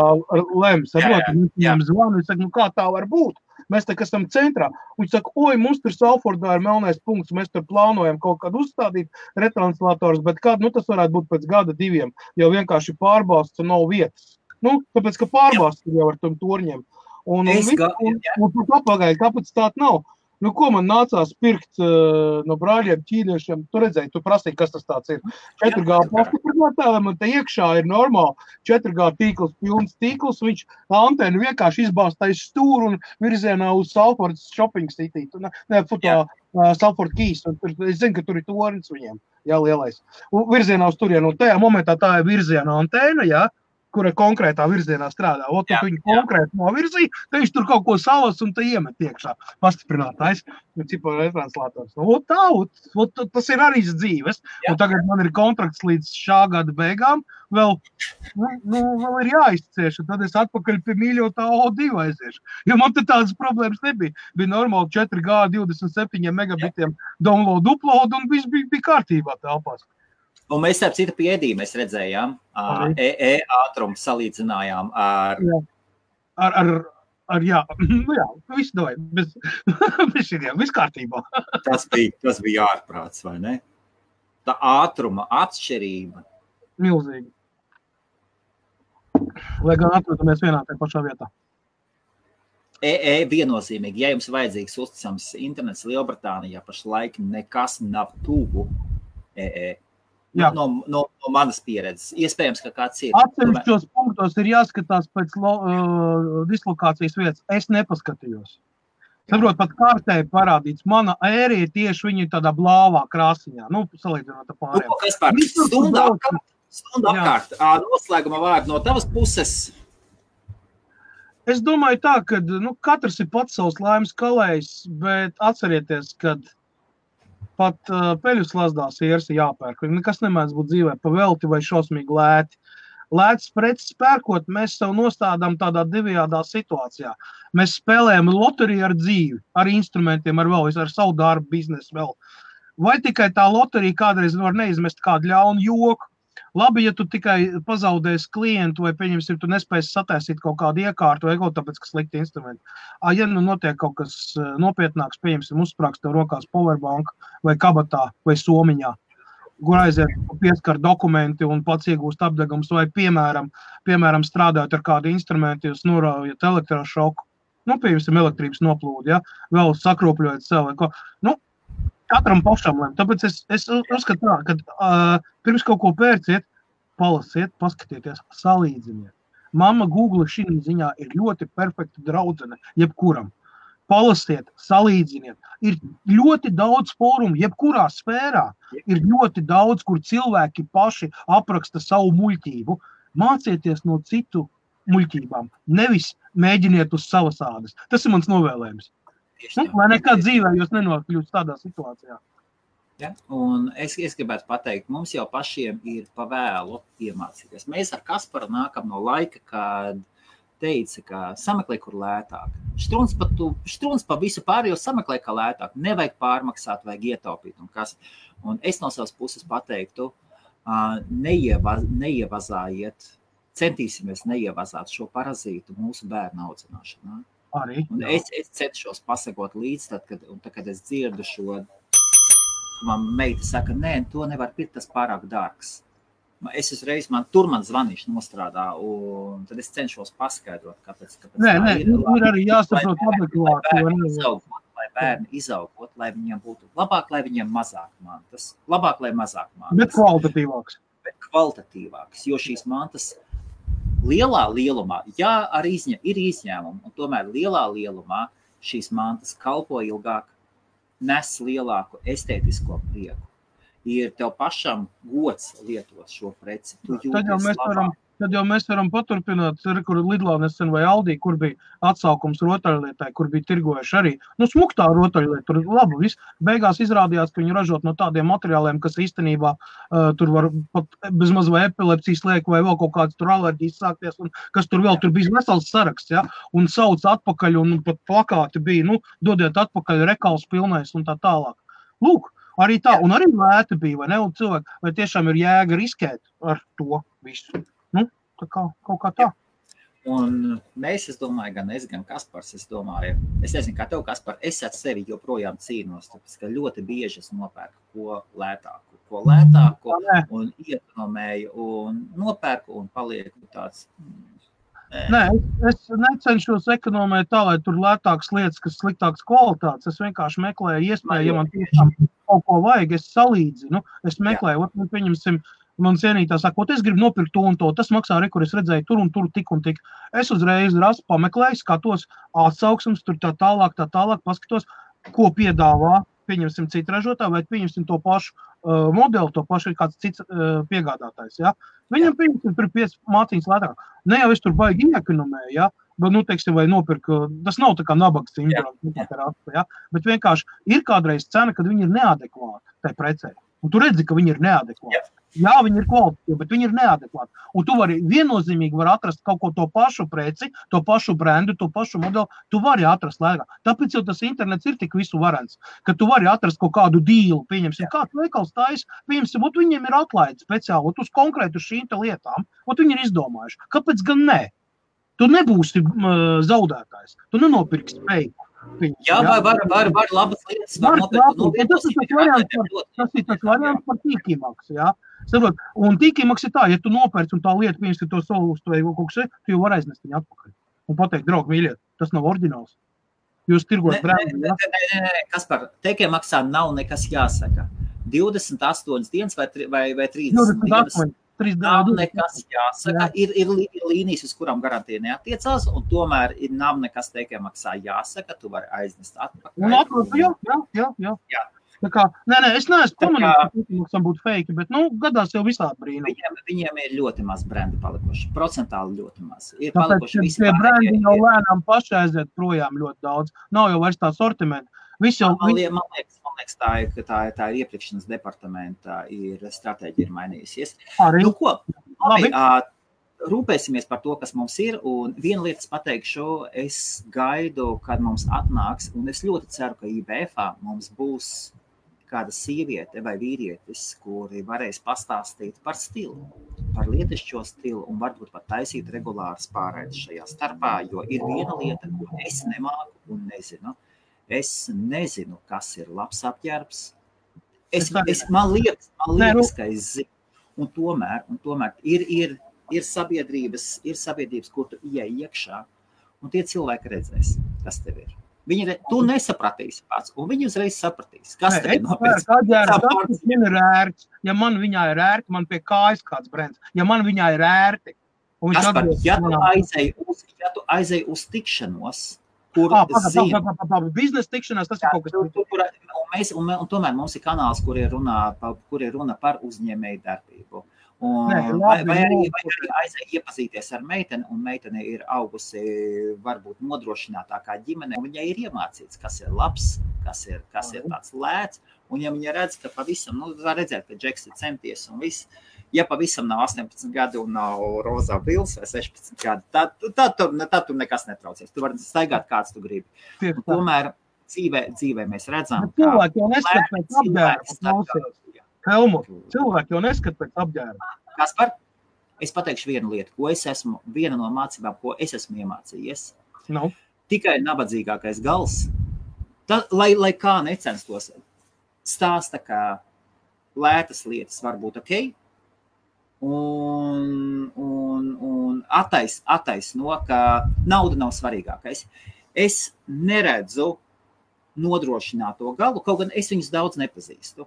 B: lems, viņam zvanu, es saku, kā tā var būt? Mēs tā, kas esam centrā. Viņš saka, mums tur Salfordā ir melnais punkts, mēs tur plānojam kaut kādu uzstādīt retranslators, bet tas varētu būt pēc gada 2, jo vienkārši pārbausts un nav vietas. Tāpēc, ka pārbausts jau ar tom torņiem. Un tur papagaļ kapacitāte nav. Ko man nācās pirkt no brāļiem ķīniešiem? Tu redzēji, tu prasīji, kas tas tāds ir. 4G pastiprinātājiem, un te iekšā ir normāli 4G tīkls, pilns tīkls, viņš antenu vienkārši izbāstais stūru un virzienā uz Salford Shopping City. Salford Keys. Es zinu, ka tur ir tornis viņiem, lielais. Un virzienā uz turienu, un tajā momentā tā ir virziena antēna, kura konkrētā virzienā strādā. Tu viņu konkrēti novirzīja, tad viņš tur kaut ko salas un te iemet iekšā. Pastiprinātājs, cipa retranslators. Tas ir arī dzīves. Un tagad man ir kontrakts līdz šā gada beigām. Vēl ir jāizcieš, un tad es atpakaļ pie mīļotā O2 aiziešu. Jo man te tādas problēmas nebija. Bija normāli 4G 27 megabitiem download, upload, un viss bija kārtībā telpās.
A: Un mēs ar citu piedību mēs redzējām, ātrumu salīdzinājām ar...
B: Viss davai, viss kārtībā.
A: Tas bija ārprāts, vai ne? Tā ātruma atšķirība.
B: Milzīgi. Lai gan atrodamies vienā tajā pašā vietā.
A: Viennozīmīgi, ja jums vajadzīgs uzticams internets Lielbritānijā, pašlaik nekas nav tuvu No manas pieredzes. Iespējams, ka kāds ir.
B: Atsevišķos punktos ir jāskatās pēc dislokācijas vietas. Es nepaskatījos. Saprot, pat kārtē parādīts. Mana ērija tieši viņa tādā blāvā krāsiņā. Salīdzinot ar pārējiem.
A: Kas pār? Stundu apkārt. Noslēguma vārdu no tavas puses.
B: Es domāju tā, ka katrs ir pats savs laimes kalējs, bet atcerieties, kad pat peļu slazdās ieras jāpērk. Nekas nemēdz būt dzīvē pa velti vai šausmīgi lēti. Lētas preces pērkot, mēs sev nostādām tādā divējādā situācijā. Mēs spēlējam loteriju ar dzīvi, ar instrumentiem, ar savu darbu, biznesu vēl. Vai tikai tā loterija kādreiz var neizmest kādu ļaunu joku? Labi, ja tu tikai pazaudēsi klientu vai, pieņemsim, tu nespēsi sataisīt kaut kādu iekārtu vai kaut tāpēc, ka slikti instrumenti. Ja nu notiek kaut kas nopietnāks, pieņemsim, uzsprāks tev rokās powerbank vai kabatā vai somiņā, kur aiziet pieskar dokumenti un pats iegūst apdegums vai, piemēram, strādājot ar kādu instrumentu, jūs noraujat elektrošoku, pieņemsim, elektrības noplūdi, ja, vēl sakropļojat sev vai ko. Katram pašam lēm. Tāpēc es uzskatu tā, ka pirms kaut ko pērciet, palasiet, paskatieties, salīdziniet. Mamma Google šī ziņā ir ļoti perfekta draudzene, jebkuram. Palasiet, salīdziniet. Ir ļoti daudz fórumu, jebkurā sfērā. Ir ļoti daudz, kur cilvēki paši apraksta savu muļķību. Mācieties no citu muļķībām. Nevis mēģiniet uz savas ādas. Tas ir mans novēlējums. Lai nekad dzīvē jūs nenokļūst tādā situācijā.
A: Ja? Un es gribētu pateikt, mums jau pašiem ir pavēlu iemācīties. Mēs ar Kasparu nākam no laika, kad teica, ka sameklē, kur lētāk. Štruns pa visu pārējo sameklē, kā lētāk. Nevajag pārmaksāt, vajag ietaupīt. Un es no savas puses pateiktu, neievazājiet, centīsimies neievazāt šo parazītu mūsu bērnu audzināšanā.
B: Arī.
A: Un es centšos pasakot līdz, kad es dzirdu šo, man meita saka, nē, to nevar pirkt, tas pārāk dārgs. Es uzreiz, man zvanīšu nostrādā, un tad es cenšos paskaidrot, kāpēc
B: Nē, ir arī jāsaprot adekvāti.
A: Lai bērni izaugot, lai viņiem būtu labāk, lai viņiem mazāk mantas. Labāk, lai mazāk mantas.
B: Bet kvalitatīvāks.
A: Jo šīs mantas lielā lielumā, jā, arī ir izņēmumi, un tomēr lielā lielumā šīs mantas kalpo ilgāk, nes lielāku estētisko prieku. Ir tev pašam gods lietot šo preci. Tad jau mēs varam paturpināt, kur Lidlā nesen vai Aldī, kur bija atsaukums rotaļlietai, kur bija tirgojuši arī. Smuktā rotaļlieta, tur labi viss. Beigās izrādījās, ka viņi ražot no tādiem materiāliem, kas īstenībā tur var pat bezmaz vai epilepsijas liek vai vēl kaut kāds tur alerģijas sākties, un kas tur vēl, tur bija vesels saraksts, ja, un sauc atpakaļ, un pat plakāti bija, dodiet atpakaļ rekals pilnais un tā tālāk. Lūk, arī tā, un arī lēti bija, vai ne, un cilvēki, vai tiešām ir jēga riskēt ar to visu. Tā kā, kaut kā tā. Un mēs, es domāju, gan es, gan Kaspars, es nezinu, kā tev, Kaspar, es ar sevi joprojām cīnos, tāpēc, ka ļoti bieži es nopērku ko lētāku un iekonomēju un nopērku un palieku tāds.
B: Nē, es necenšos ekonomēt tā, lai tur lētākas lietas, kas sliktākas kvalitātes. Es vienkārši meklēju iespēju, ja man tiešām kaut ko vajag, es salīdzinu. Es meklēju, pieņemsim, man cienītā sakot, es gribu nopirkt to un to, tas maksā arī, kur es redzēju tur un tur tik un tik. Es uzreiz pameklēju, skatos atsauksmes, tur tā tālāk, paskatos, ko piedāvā, pieņemsim citu ražotāju, vai pieņemsim to pašu modeli, to pašu ir kāds cits piegādātājs, ja. Viņam pieņemsim tur 5 mācīņas lētāk. Ne jau es tur baigi iekonomēju, ja, bet, teiksim, vai nopirku, tas nav tā kā nabaga sindroms, ja, bet vienkārši ir kādreiz cena, kad viņi ir neadekvāti tai precei. Un tu redzi, ka viņi ir neadekvāti. Jā, viņi ir kvalitatīvi, bet viņi ir neadekvāti. Un tu viennozīmīgi vari atrast kaut ko to pašu preci, to pašu brendu, to pašu modeli, tu vari atrast lētāk. Tāpēc jau tas internets ir tik visu varens, ka tu vari atrast kaut kādu dīlu, pieņemsim, kāds veikals tais, pieņemsim, viņiem ir atlaidi speciāli, uz konkrētu šīm lietām, viņi ir izdomājuši. Kāpēc gan ne? Tu nebūsi zaudētājs, tu nenopirksi feiku.
A: Jā, var labas lietas.
B: Tas ir tas variants par tīkīmaksu, jā. Saprot, un tīkīmaks ir tā, ja tu nopērci un tā lieta, pieņemsim to solūstu vai kaut kas, tu jau var aiznest viņu atpakaļ. Un pateikt, draugi, mīļiet, tas nav oriģināls. Jūs tirgot brendu, jā?
A: Nē, Kaspar, tīkīmaksā nav nekas jāsaka. 28 dienas vai 30 dienas. Nav nekas jāsaka, ir līnijas, uz kurām garantija neatiecās, un tomēr nav nekas tīkīmaksā jāsaka, tu vari aiznest atpakaļ.
B: Un atpakaļ, jā. Tā kā, nē, es neesmu pamanījis, ka tīkīmaksam būtu fake, bet, gadās jau visādi brīnumi.
A: Viņiem ir ļoti maz brendi palikuši, procentāli ļoti maz.
B: Tāpēc tie brendi jau lēnām paši aiziet projām ļoti daudz. Nav jau vairs tā sortimenta. Viss jau...
A: Man liekas, tā ir iepirkšanas departamenta stratēģija ir mainījusies.
B: Arī.
A: Nu, ko? Labi. Rūpēsimies par to, kas mums ir, un viena lietas pateikšu, es gaidu, kad mums atnāks, un es ļoti ceru, ka IBF-ā mums būs kāda sieviete vai vīrietis, kuri varēs pastāstīt par stilu, par lietišķo stilu, un varbūt pat taisīt regulāras pārraides šajā starpā, jo ir viena lieta, ko es nemāku un nezinu. Es nezinu, kas ir labs apģērbs. Man liekas, ka es zinu. Un tomēr ir sabiedrības, kur tu ieej iekšā, un tie cilvēki redzēs, kas tev ir. Tu nesapratīsi pats, un viņi uzreiz sapratīs, kas tev ir nopēc.
B: Man ir ērts. Ja man viņā ir ērti, man pie kājas kāds brends. Ja man viņā ir ērti.
A: Kaspar, ja tu aizēji uz tikšanos, kur zina.
B: Biznesa tikšanās, tas ir kaut kas.
A: Un tomēr mums ir kanāls, kur ir runa par uzņēmēju darbību. Vai arī aizēja iepazīties ar meiteni, un meitene ir augusi varbūt nodrošinātākā ģimene, un viņai ir iemācīts, kas ir labs, kas ir tāds lēts, un ja viņa redz, ka pavisam, var redzēt, ka Džeks ir centies un viss, ja pavisam nav 18 gadi un nav rozā bils vai 16 gadi, tad tu nekas netraucies, tu vari staigāt kāds tu gribi. Un tomēr dzīvē mēs redzam,
B: ka Helmut, cilvēki jau neskat pēc apģērba.
A: Kaspar, es pateikšu vienu lietu, viena no mācībām, ko es esmu iemācījies.
B: No.
A: Tikai nabadzīgākais gals, lai kā necenstos, stāsta, ka lētas lietas var būt ok, un attaisno, ka nauda nav svarīgākais. Es neredzu nodrošināto galu, kaut gan es viņus daudz nepazīstu.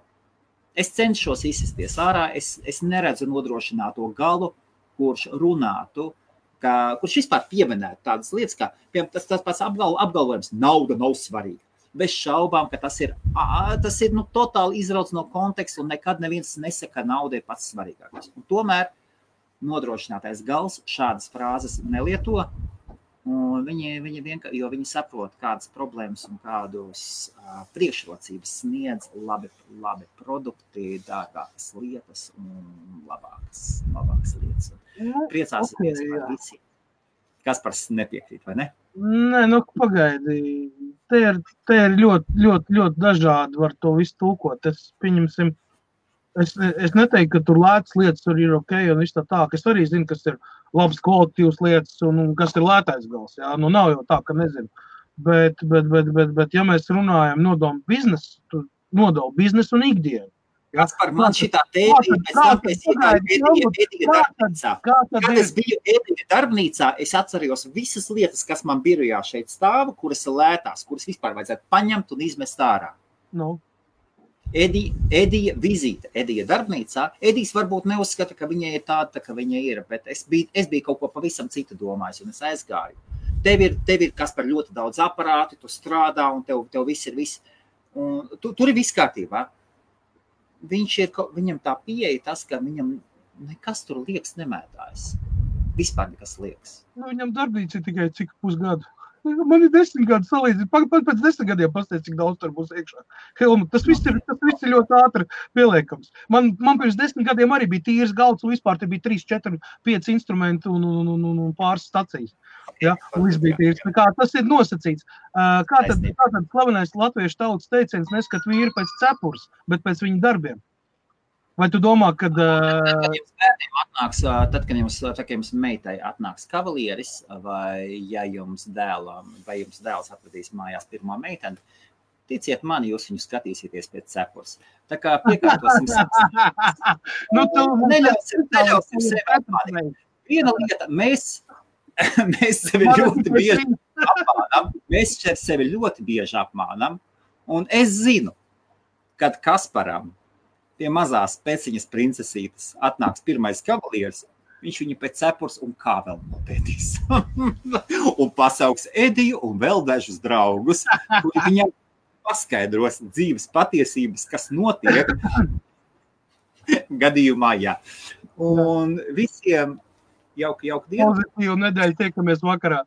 A: Es cenšos izsisties ārā, es neredzu nodrošināto galu, kurš runātu, kurš vispār pieminētu tādas lietas, kā tas pats apgalvojums, nauda nav svarīga. Bez šaubām, ka tas ir totāli izrauts no konteksta, un nekad neviens nesaka, ka nauda ir pats svarīgākais. Un tomēr nodrošinātais gals šādas frāzes nelieto, un viņi saprot, kādas problēmas un kādus priekšrocības sniedz labi produkti, dārgākas lietas un labākas lietas. Priecāsimies par visiem. Kaspars nepiekrīt, vai ne?
B: Nē, pagaidi. Te ir ļoti dažādi var to visu tulkot. Es neteiktu, ka tur lētas lietas tur ir ok, un viss tā. Es arī zinu, kas ir labs kvalitatīvs lietas un kas ir lētais gals. Jā? Nav jau tā, ka nezinu. Bet ja mēs runājam nodomu biznesu, tu nodalu biznesu un ikdienu.
A: Kaspar, man šitā tēma ir pēc tam, ka es iegāju Edija darbnīcā. Kad es biju Edija darbnīcā, es atceros visas lietas, kas man birojā šeit stāva, kuras ir lētās, kuras vispār vajadzētu paņemt un izmest ārā. Edija vizīte, Edija darbnīcā. Edijs varbūt neuzskata, ka viņai ir tāda, ka viņa ir, bet es biju kaut ko pavisam citu domājis, un es aizgāju. Tev ir Kaspar ļoti daudz aparāti, tu strādā, un tev viss ir viss. Tur ir viss kārtībā. Viņam tā pieeja tas, ka viņam nekas tur liekas nemētājas. Vispār nekas liekas.
B: Viņam darbnīca ir tikai cik pusgadu. Man ir 10 gadu salīdzīt. Pēc 10 gadiem pastāst, cik daudz tur būs iekšā. Helmut, tas viss ir ļoti ātri pieliekams. Man pirms 10 gadiem arī bija tīrs galds, un vispār te bija 3, 4, 5 instrumenti un pāris stacijas. Ja? Un viss bija tīrs. Tas ir nosacīts. Kā tad slavenais latviešu tautas teiciens neskat vīru pēc cepures, bet pēc viņu darbiem? Vai tu domā, kad...
A: Tad, kad jums meitai atnāks kavalieris, vai jums dēls atvedīs mājās pirmo meiteni, ticiet mani, jūs viņu skatīsieties pēc cepures. Tā kā piekārtosim neļausim sevi apmānīt. Viena lieta, mēs sevi ļoti bieži apmānam, un es zinu, kad Kasparam pie mazās peciņas princesītes atnāks pirmais kavalieris, viņš viņu pēc cepures un kā vēl nopētīs. Un pasauks Ediju un vēl dažus draugus, kuri viņam paskaidros dzīves patiesības, kas notiek gadījumā, jā. Un visiem jauku dienu.
B: Pozitīvu nedēļu, tiekamies vakarā.